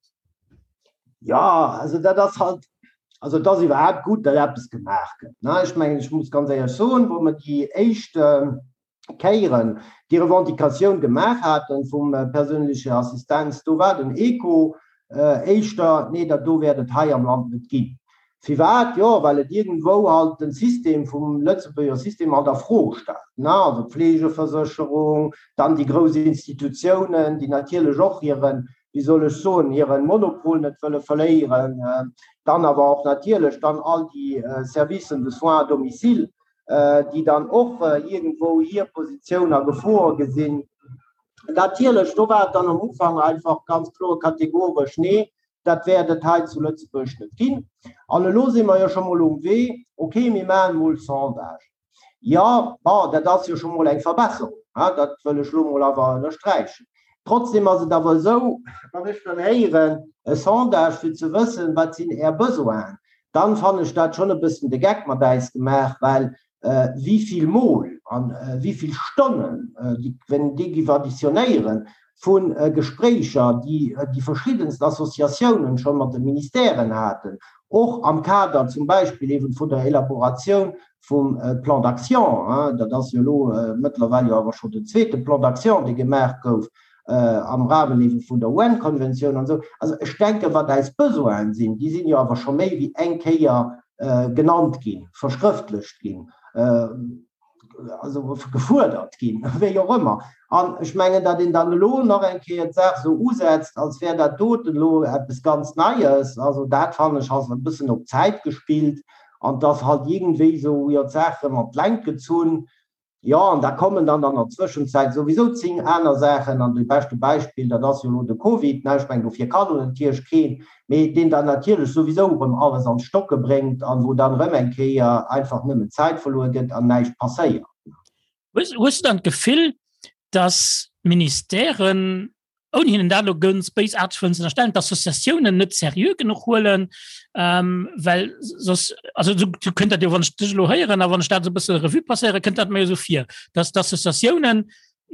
Ja, also dat ass halt, also et ass iwwerhaapt gutt, datt eppes gemaach gëtt, ne. Ech mengen, ech muss ganz éierlech soen, wou mer déi éischt. Kéieren déi Revendicatioun gemaach haten vum perséinleche Assistenz, do war den Echo éischter, nee, dat do wäert et hei am Land net ginn. Firwat? Jo, well et iergendwou halt den System vum Lëtzebuerger System halt a Fro stellt, ne, also d'Fleegeversécherung, dann déi grouss Institutiounen, déi natierlech och hiren, wéi soll ech soen, hiren Monopol net wëlle verléieren, dann awer och natierlech dann all déi Services de soins à domicile, déi dann och iergendwou hir Positioun a Gefor gesinn. Natierlech, do war et dann am Ufank einfach ganz kloer kategoresch, Nee, dat wäert et hei zu Lëtzebuerg net ginn. An elo si mer jo scho mol um Wee, okay, mir maachen emol Sondagen. Jo, bon, dat ass jo scho mol eng Verbesserung, dat wëll ech elo mol awer ënnersträichen. Trotzdem ass et awer esou, wann ech dann héieren, e Sondage fir ze wëssen, wat sinn Är Besoinen, dann fannen ech dat schonn e bëssen de Geck mat äis gemaach, well wéi vill Mol an wéi vill Stonnen, wenn déi giff additionnéieren, vu Gespréicher, déi déi verschiddenst Associatiounen scho mat de Ministèren haten, och am Kader zum Beispill eeben vun der Elaboratioun vum Plan d'action, dat ass jo elo mëttlerweil jo awer scho den zweete Plan d'action, dee gemaach gouf, am Rahmen eebe vun der UN-Konventioun an esou. Also ech denken, wat eis Besoinen sinn, déi sinn jo awer scho méi wéi eng Kéier genannt ginn, verschrëftlecht ginn, also gefuerdert ginn, wéi och ëmmer. An ech mengen, datt een dann elo nach eng Kéier d'Saach esou usetzt, als wär dat doten elo eppes ganz Neies, also dat fannen ech ass e bëssen op Zäit gespillt an 't ass halt iergendwéi esou, jo, d'Saach erëm an d'Längt gezunn. Jo, an da kommen dann an der Zwëschenzäit souwisou 10 aner Saachen. An de beschte Beispill, dat ass jo elo de Covid, ne, ech mengen, dofir kann elo natierlech keen, mee deen dann natierlech souwisou erëm alles an d'Stocke bréngt an wou dann erëm eng Kéier einfach nëmmen Zäit verluer gëtt an näischt passéiert. Hues du dann d'Gefill, dass d'Ministèren ouni hinnen dat elo ganz béisaarteg wëllen ze ënnerstellen, d'Associatiounen net seriö genuch huelen, ähm, well soss, also du, du kënnt dat jo, wann ech dech elo héieren a wann ech dat esou e bësse Revue passéieren, kënnt dat mir jo esou vir, dass d'Associatiounen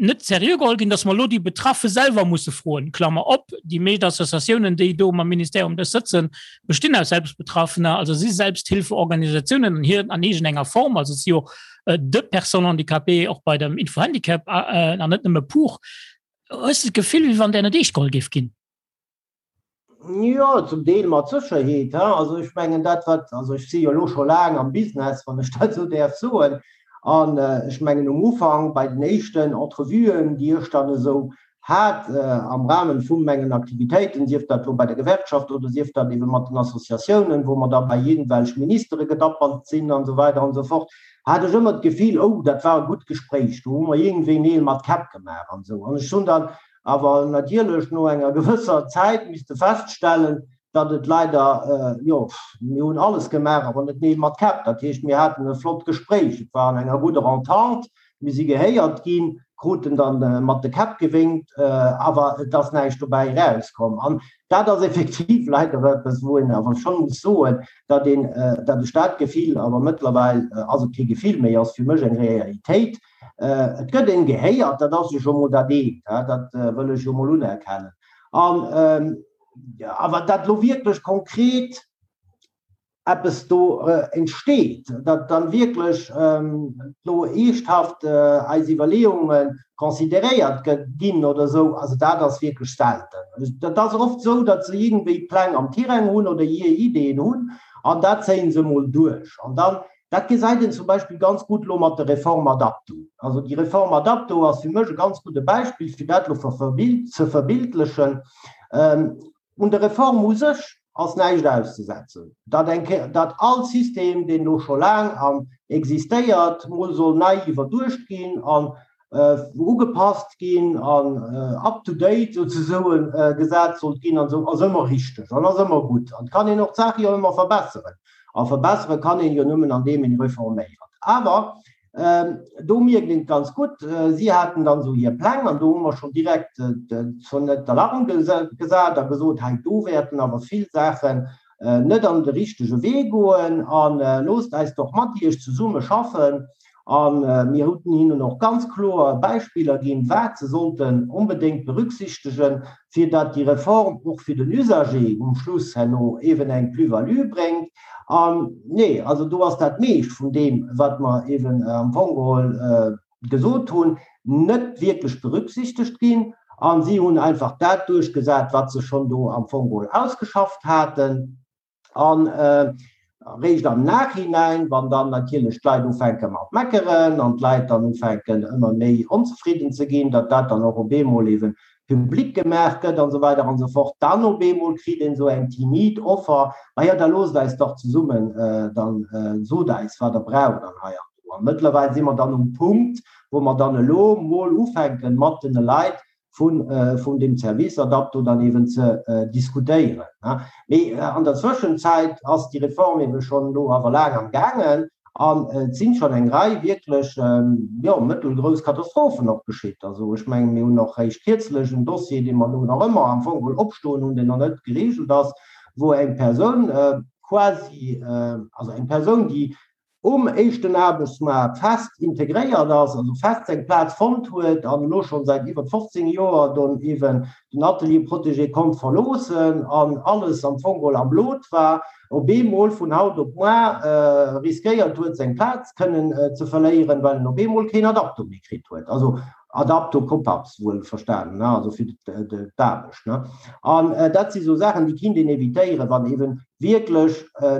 net seriö geholl ginn, dass mer elo déi Betraffe selwer musse froen, Klammer op, déi meescht Associatiounen, déi do mam Ministère um Dësch sëtzen, bestinn aus Selbstbetraffener, also si Selbsthilfeorganisatiounen an hir an iergendenger Form, also et si jo de Personnes handicapées och bei dem Infohandicap an net nëmme pour. Hues de d'Gefill, wéi wann där net eescht geholl géif ginn? Jo, zum Deel mat Sécherheet. Also ech mengen dat wat, also ech si jo elo scho laang am Business, wann ech dat esou däerf soen, an ech mengen um Ufank bei den éischten Entrevuen, déi ech dann esou hat am Rahmen vu mengen Aktivitéiten, sief dat elo bei der Gewerkschaft oder sief dat ebe mat den Associatiounen, wou mer da bei iergendwelch Ministere gedappert sinn an esou weider an esou fort, hat ech ëmmer d'Gefill, oh, dat war e gutt Gespréich, do hu mer iergendwéi Neel mat Käpp gemaach an esou. An ech hunn dann awer natierlech no enger gewësser Zäit misste feststellen, datt et leider, jo, mir hunn alles gemaach, awer net Neel mat Käpp. Dat heescht, mir haten e flott Gespréich, et war an enger gudder Entente, mir si gehéiert ginn, kruten dann mat de Käpp gewénkt, awer et ass näischt dobäi erauskomm. An dat ass effektiv leider eppes, wou een awer schonn muss soen, datt een, datt ech dat Gefill, awer mëttlerweil ass et kee Gefill méi, ass fir mech eng Realitéit, et gëtt een gehéiert, dat ass jo scho mol dat eent, dat wëll ech jo mol unerkennen. An awer dat elo wierklech konkret eppes do entsteet, datt dann wierklech elo eeschthaft eis Iwwerleeunge consideréiert ginn oder esou, also dat ass wierklech selten. Dat ass oft esou, datt se iergendwéi Pläng am Tirang hunn oder hir Ideeën hunn an dat zéie se emol duerch. An dann, dat gesäit een zum Beispill ganz gutt elo mat der Reform Adapto. Also déi Reform Adapto ass fir mech e ganz gudde Beispill, fir dat elo ze verbildlechen. Un der Reform u sech ass näischt auszesetzen. Datt eng Kéier, datt all System, deen elo scho laang an existéiert, mol soll nei iwwerduecht ginn an ugepasst ginn an up to date souzesoen gesat sollt ginn an esou, ass ëmmer richteg an ass ëmmer gutt. An et kann een och d'Saach jo ëmmer verbesseren. A verbessere kann een jo nëmmen andeem een reforméiert. Awer Do mierkt een et ganz gutt, si haten dann esou hir Pläng an do hu mer schonn direkt d'Sonnette d'alarme gesat a gesot, hei do wäerten awer vill Saachen net an de richtege Wee goen a loosst eis doch mat Iech zesumme schaffen. A mir hunn hinnen och ganz kloer Beispiller ginn, wat se sollten onbedéngt berücksichtegen, fir datt déi Reform och fir den Usager um Schluss herno eeben eng Plus-value bréngt. An nee, also do ass dat meescht vun deem, wat mer eeben am Fong geholl. gesot hunn, net wierklech berücksichtegt ginn a si hunn einfach dat duerchgesat, wat se schonn do am Fong geholl ausgeschafft haten. An eréischt am Nachhinein, wann dann natierlech d'Leit ufänke mat meckeren an d'Leit dann ufänken ëmmer méi onzefridden ze ginn, datt dat dann och op eemol eeben public gemaach gëtt an esou weider an esou fort, dann op eemol kritt een esou eng timid Offer, Ma jo, da loosst eis dach zesummen, dann sot eis, wat Der braucht an hei an do. A mëttlerweil si mer dann um Punkt, wou mer dann elo mol ufänken, mat den Leit vun, vun deem Service Adapto dann eeben ze diskutéieren. Mee an der Zwëschenzäit ass déi Reform eebe schonn elo awer laang am gaangen an et sinn schonn eng Rei wierklech, jo, mëttelgrouss Katastrophen och geschitt. Also ech mengen, mir hunn och réischt kierzlech en Dossier, dee mer elo nach ëmmer am Fong geholl opstoen hunn, deen nach net geregelt ass, wou eng Persoun quasi, also eng Persoun, déi um éischten Aarbechtsmaart fest integréiert ass, also fest seng Plaz fonnt huet an elo schonn säit iwwer 15 Joer don eeben den Atelier protégé konnt verloossen an alles am Fong geholl am Lot war, op eemol vun haut op muar riskéiert huet seng Plaz kënnen ze verléieren, well en op eemol keen Adapto méi kritt huet. Also Adapto Copaps wuel verstanen, ne, also fir d'Aarbecht, ne. An dat si sou Saachen, déi kinnt een evitéieren, wann eeben wierklech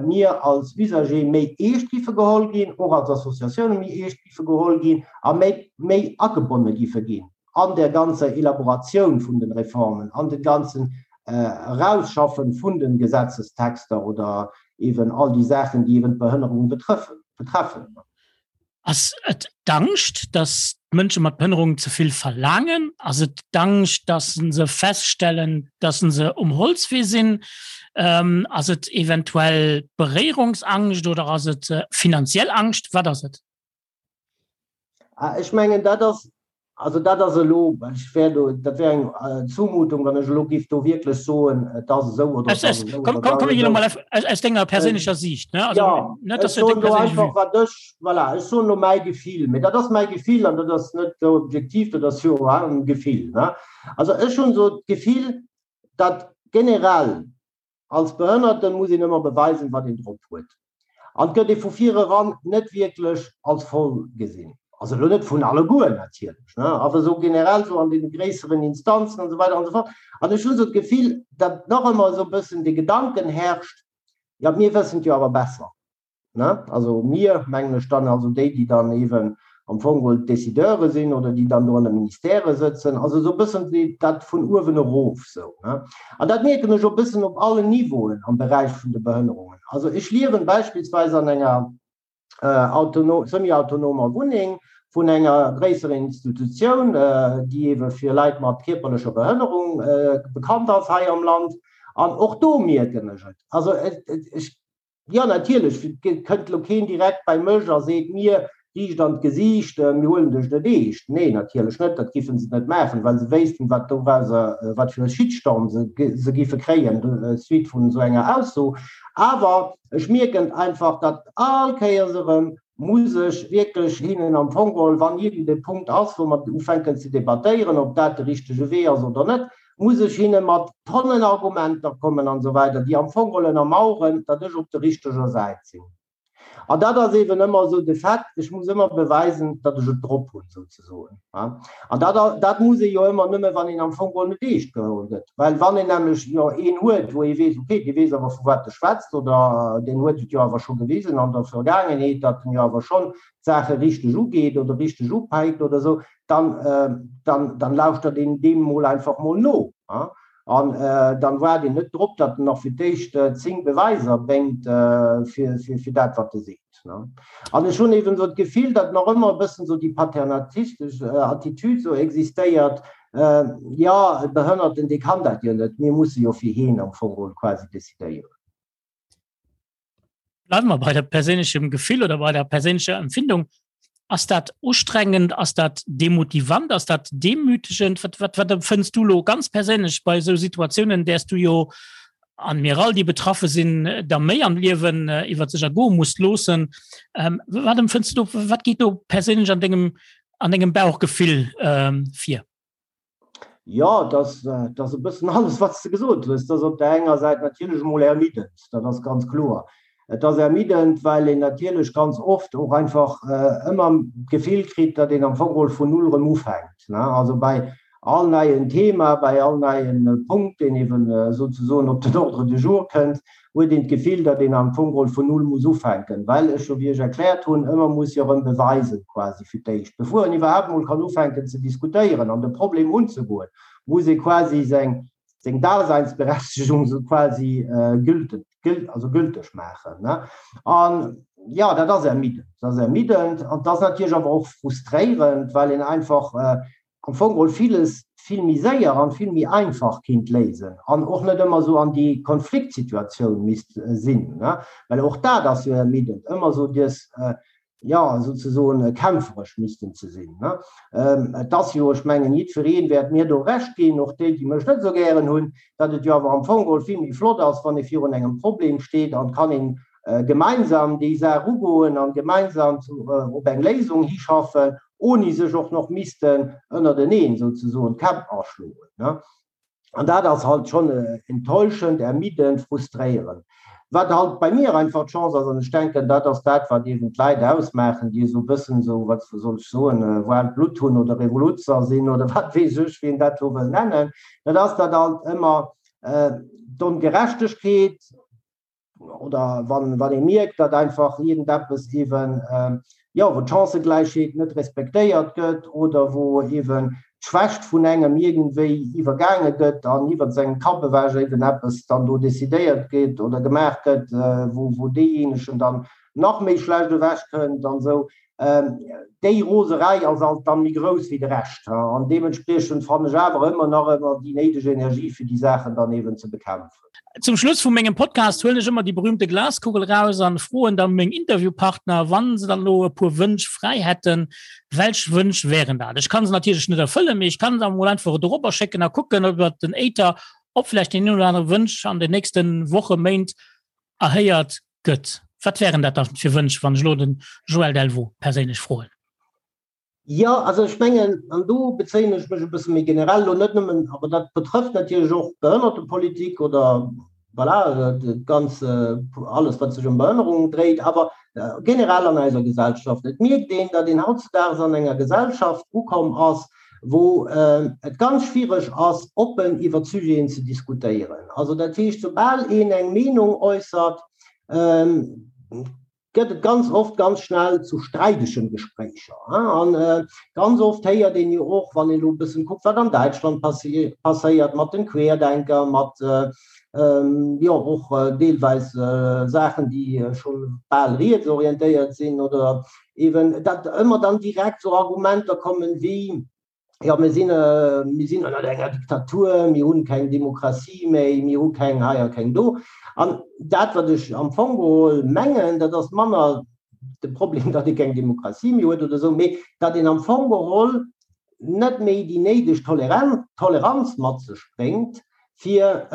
mir als Usager méi eescht giffe geholl ginn, och als Associatioune méi eescht giffe geholl ginn a méi, méi agebonne giffe ginn an där ganzer Elaboratioun vun den Reformen, an den ganzen Erausschaffen vun den Gesetzestexter oder eeben all déi Saachen, déi eeben d'Behënnerung betreffen. Ass et d'Angscht, datt d'Mënsche mat Behënnerung ze vill verlaangen? Ass et d'Angscht, datt se feststellen, datt se um Holzwee sinn? Ass et eventuell Beréierungsangscht oder ass et finanziell Angscht? Wat ass et? Ech mengen, dat ass Also dat ass elo, ech wär do, dat wär eng Zumutung, wann ech elo géif do wierklech soen, et ass esou oder et ass esou. Komm, komm, komm, elo mol aus denger perséinlecher Siicht, ne? Also, ja, net, dass du deng perséinlech Vue. Wat ech, voilà, ech soen elo mäi Gefill, mee dat ass mäi Gefill an dat ass net objektiv, dat ass jo e Gefill, ne? Also ech hunn esou d'Gefill, datt generell Als Behënnerten muss een ëmmer beweisen, wat een drop huet. An et gëtt ee vu vir eran net wierklech als voll gesinn. Also elo net vun alleguer natierlech, ne, awer esou generell esou an deene gréisseren Instanzen an esou weider an esou fort. An ech hunn esou d'Gefill, datt nach ëmmer esou e bëssen dee Gedanken herrscht, jo mir wëssen et jo awer besser. Ne? Also mir, mengen ech dann, also déi, déi dann eeben am Fong geholl d'Décideure sinn oder déi dann do an de Ministèrë sëtzen, also esou e bëssen dat vun uewen erof esou. Ne? An dat mierken ech och e bëssen op allen Niveauen am Beräich vun de Behënnerungen. Also ech liewen beispillsweis an enger autono, semi-autonomer Wunneng vun enger gréisserer Institutioun, déi eebe fir Leit mat kierperlecher Behënnerung bekannt ass hei am Land. An och do mierken ech et. Also ech Jo, natierlech kënnt elo keen direkt bei mech a seet mir riicht an d'Gesiicht, mir huelen dech net eescht. Nee, natierlech net, dat giffen se net maachen, well se wéissten, wat dorauser, wat fir e Shitstorm se se giffe kréien suite vun esou enger Ausso. Awer ech mierken einfach, datt all Kéiers erëm muss ech wierklech hinnen am Fong geholl, wann iergend e Punkt ass, wou mer ufänken ze debattéieren, ob dat de richtege Wee ass oder net, muss ech hinne mat Tonnen Argumenter kommen an esou weider, déi am Fong geholl ënnermauern, datt ech op der richteger Säit sinn. An dat ass eeben ëmmer esou de Fait, ech muss ëmmer beweisen, datt ech et drop hunn, souzesoen. An dat, dat muss ee jo ëmmer nëmme, wann een am Fong geholl net eescht geholl gëtt. Well wann een nämlech jo een huet, wou ee weess, okay, dee weess awer vu wat e schwätzt oder deen huet et jo awer scho gewisen an der Vergaangenheet, datt en jo awer schonn d'Saache richteg ugeet oder richteg upäikt oder esou, dann, dann, dann lauschtert een deem mol einfach mol no. An dann waart een net drop, datt en nach fir d'éischt 10 Beweiser bréngt fir, fir, fir dat, wat e seet. An ech hunn eben esou d'Gefill, datt nach ëmmer e bëssen esou déi paternatistesch Attitüd esou existéiert, Jo, e Behënnerten, dee kann dat jo net, mir musse jo fir hien am Fong geholl quasi decidéieren. Bleiwe mer bei der perséinlechem Gefill oder bei der perséinlecher Empfindung. Ass dat ustrengend, ass dat demotivant, ass dat demütegend? Wat, wat, wat empfënns du lo ganz perséinlech bei esou Situatiounen, däers du jo an mir all, déi betraffe sinn, da méi am Liewen äh, iwwer sech ergoe musst loossen. Ähm, wat empfënns du do, wat geet do perséinlech an dengem, an dengem Bauchgefill ähm, vir? Jo, et ass, et ass e bëssen alles, wat s de gesot hues. Et ass op där enger Säit natierlech emol ermiddend, dat ass ganz kloer. Et ass ermiddend, well een natierlech ganz oft och einfach ëmmer d'Gefill kritt, datt een am Fong geholl vun null erëm ufänkt. Also bei all neien Thema, bei all neien Punkt, deen eeben souzesoen op den Ordre du jour kënnt, huet een d'Gefill, datt een am Fong geholl vun null muss ufänken, well ech jo, wéi ech erkläert hunn, ëmmer muss jo erëm beweisen quasi fir d'éischt, bevor een iwwerhaapt emol kann ufänken ze diskutéieren an de Problem unzegoen, muss ee quasi seng seng Daseinsberechtigung sou quasi gülten, also gülteg maachen. An jo, dat ass ermiddend. Dat ass ermiddend an dat ass natierlech awer och frustréierend, well een einfach am Fong geholl villes vill méi séier an vill méi einfach kinnt léisen an och net ëmmer esou an déi Konfliktsituatioun misst sinn. Well och dat ass jo ermiddend, ëmmer esou dës jo, souzesoen kämpferesch missten ze sinn. Et ass jo, ech mengen, jiddweree wäert mir do Recht ginn, och déi, déi mech net esou gären hunn, datt et jo awer am Fong geholl vill méi flott ass, wann ee virun engem Problem steet an kann een gemeinsam déi Saach ugoen an gemeinsam op eng Léisung hischaffen, oni sech och nach missten ënnerteneen souzesoen d'Käpp aschloen. An dat ass halt schonn enttäuschend, ermiddend, frustréierend. Wat halt bei mir einfach d'Chance ass, an ech denken, dat ass dat, wat eeben d'Leit ausmaachen, déi esou e bëssen esou, wat soll ech soen, waarmt Blutt hunn oder Revoluzzer sinn oder wat weess ech, wéi een dat elo wëll nennen, dat ass, datt halt ëmmer d'Ongerechtegkeet, oder wann, wann ee mierkt, datt einfach iergendeppes eeben, jo, wou d'Chancëgläichheet net respektéiert gëtt oder wou eeben d'Schwächt vun engem iergendwéi iwwergaange gëtt an iwwer sengem Kapp ewech eeben eppes dann do decidéiert gëtt oder gemaach gëtt, wou, wou deejéinegen dann nach méi schlecht ewechkënnt an esou. Déi Roserei ass alt dann méi grouss wéi de Rescht, an deementspriechend fannen ech awer ëmmer nach ëmmer déi néideg Energie fir déi Saachen dann eeben ze bekämpfen. Zum Schluss vu mengem Podcast huelen ech ëmmer déi berühmte Glaskugel raus an froen dann meng Interviewpartner, wann se dann elo e puer Wënsch fräi hätten, welch Wënsch wären dat? Ech kann se natierlech net erfëllen, mee ech kann se emol einfach dorobber schécken a kucken iwwer den Äther, ob vläicht deen een oder anere Wënsch an den nächsten Woche, Méint erhéiert gëtt. Wat wären dat da fir Wënsch, wann ech elo den Joël Delvaux perséinlech froen? Jo, also ech mengen, an do bezéien ech mech e bësse méi generell elo net nëmmen, awer dat betrëfft natierlech och d'Behënnertepolitik oder voilà, dat ganz, alles wat sech ëm Behënnerung dréit, awer generell an eiser Gesellschaft. Et mierkt een, datt een hautzedaags an enger Gesellschaft ukomm ass, wou et ganz schwiereg ass, oppen iwwer Sujeten ze diskutéieren. Also dat heescht, soubal een eng Meenung äussert, gëtt et ganz oft ganz schnell zu streidegen Gespréicher. An ganz oft héiert een jo och, wann een elo e bëssen kuckt, wat an Däitschland passéiert mat den Querdenker, mat jo och deelweis Saachen, déi scho bal rietsorientéiert sinn oder eben, datt ëmmer dann direkt esou Argumenter kommen wéi, jo mir sinn, mir sinn ënnert enger Diktatur, mir hunn keng Demokratie méi, mir hu keng hei a keng do. An dat, wat ech am Fong geholl mengen, dat ass manner de Problem, datt ee keng Demokratie méi huet oder esou, mee datt een am Fong geholl net méi déi néideg Toleranz mat sech bréngt, fir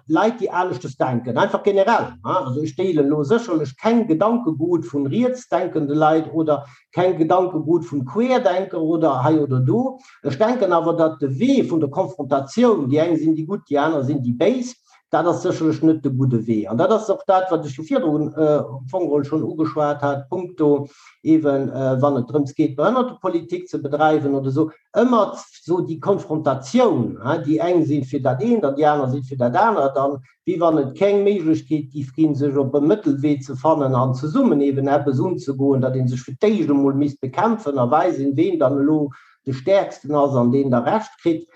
Leit, déi aneschtes denken, einfach generell. Also ech deelen elo sécherlech keng Gedankegut vun rietsdenkende Leit oder keng Gedankegut vun Querdenker oder hei oder do. Ech denken awer, datt de Wee vun der Konfrontatioun, déi eng sinn déi Gutt, déi aner sinn déi Béis, dat ass sécherlech net de gudde Wee. An dat ass och dat, wat ech jo virdrun am Fong geholl schonn ugeschwat hat, punkto eeben, wann et drëms geet, Behënnertepolitik ze bedreiwen oder esou, ëmmer esou déi Konfrontatioun, déi eng si fir dat eent an déi aner si fir dat anert, an wéi wann et keng Méiglechkeet géif ginn, sech op e Mëttelwee ze fannen an zesummen eeben eppes unzegoen, datt ee sech fir d'éischt emol misst bekämpfen a weisen, ween dann elo de Stäerksten ass an deen da Recht kritt,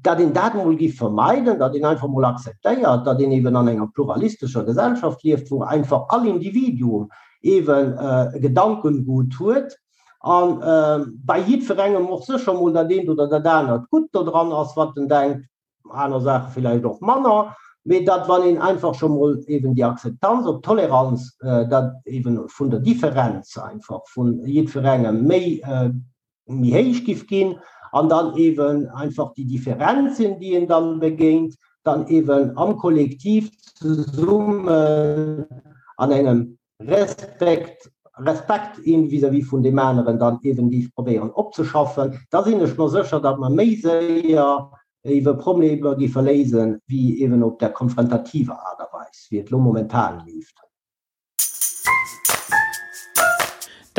datt een dat emol géif vermeiden, datt een einfach emol akzeptéiert, datt een eeben an enger pluralistescher Gesellschaft lieft, wou einfach all Individuum eeben e Gedankengut huet a bei jiddwerengem och sécher emol dat eent oder dat anert gutt dodran ass, wat en denkt, aner Saache villäicht och manner, mee datt wann een einfach scho mol eeben déi Akzeptanz op d'Toleranz, dat eeben vun der Differenz einfach vu jiddwerengem méi méi héich giff ginn an dann eeben einfach déi Differenzen, déi een dann begéint, dann eeben am Kollektiv zesummen an engem Respekt, Respekt een vis-à-vis vun deem aneren dann eeben géif probéieren opzeschaffen, da sinn ech mer sécher, datt mer méi séier eebe Problemer géife léisen, wéi eeben op där konfrontativer Aart a Weis, wéi et elo momentan leeft.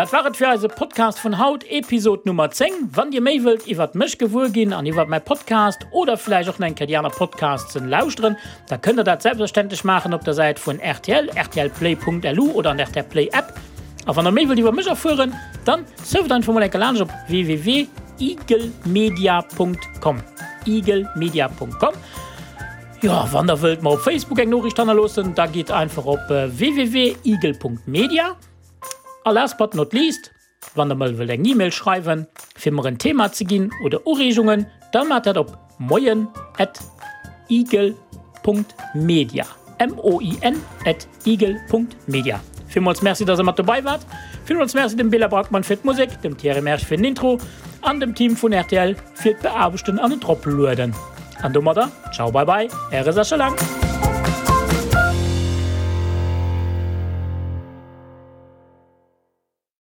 Dat war et fir eise Podcast vun haut, Episod Nummer 10. Wann dir méi wëllt iwwert mech gewuer ginn an iwwert mäi Podcast oder vläicht och nach eng Kéier déi aner Podcastsen lauschteren, da kënnt der dat selbstverständlech maachen op der Säit vun rtl, rtlplay.lu oder an der rtl Play App. A wann der méi wëllt iwwer mech erfueren, dann surft einfach mol eng Kéier laanscht op www.eaglemedia.com, eaglemedia.com. Jo, wann der wëllt mer op Facebook eng Noriicht hannerloossen, da gitt einfach op www.eagle.media. A last but not least, wann der mol wëllt eng E-Mail schreiwen, fir mer en Thema ze ginn oder Ureegungen, da maacht dat op moien at igel Punkt media, M-O-I-N at igel Punkt media. Villmools Merci, dass der mat dobei waart. Villmools Merci dem Bela Brackmann fir d'Musek, dem Thierry Mersch fir den Intro an dem Team vun rtl fir d'Beaarbechten an et Eroplueden. An domadder, ciao bye bye, äre Sascha Lang.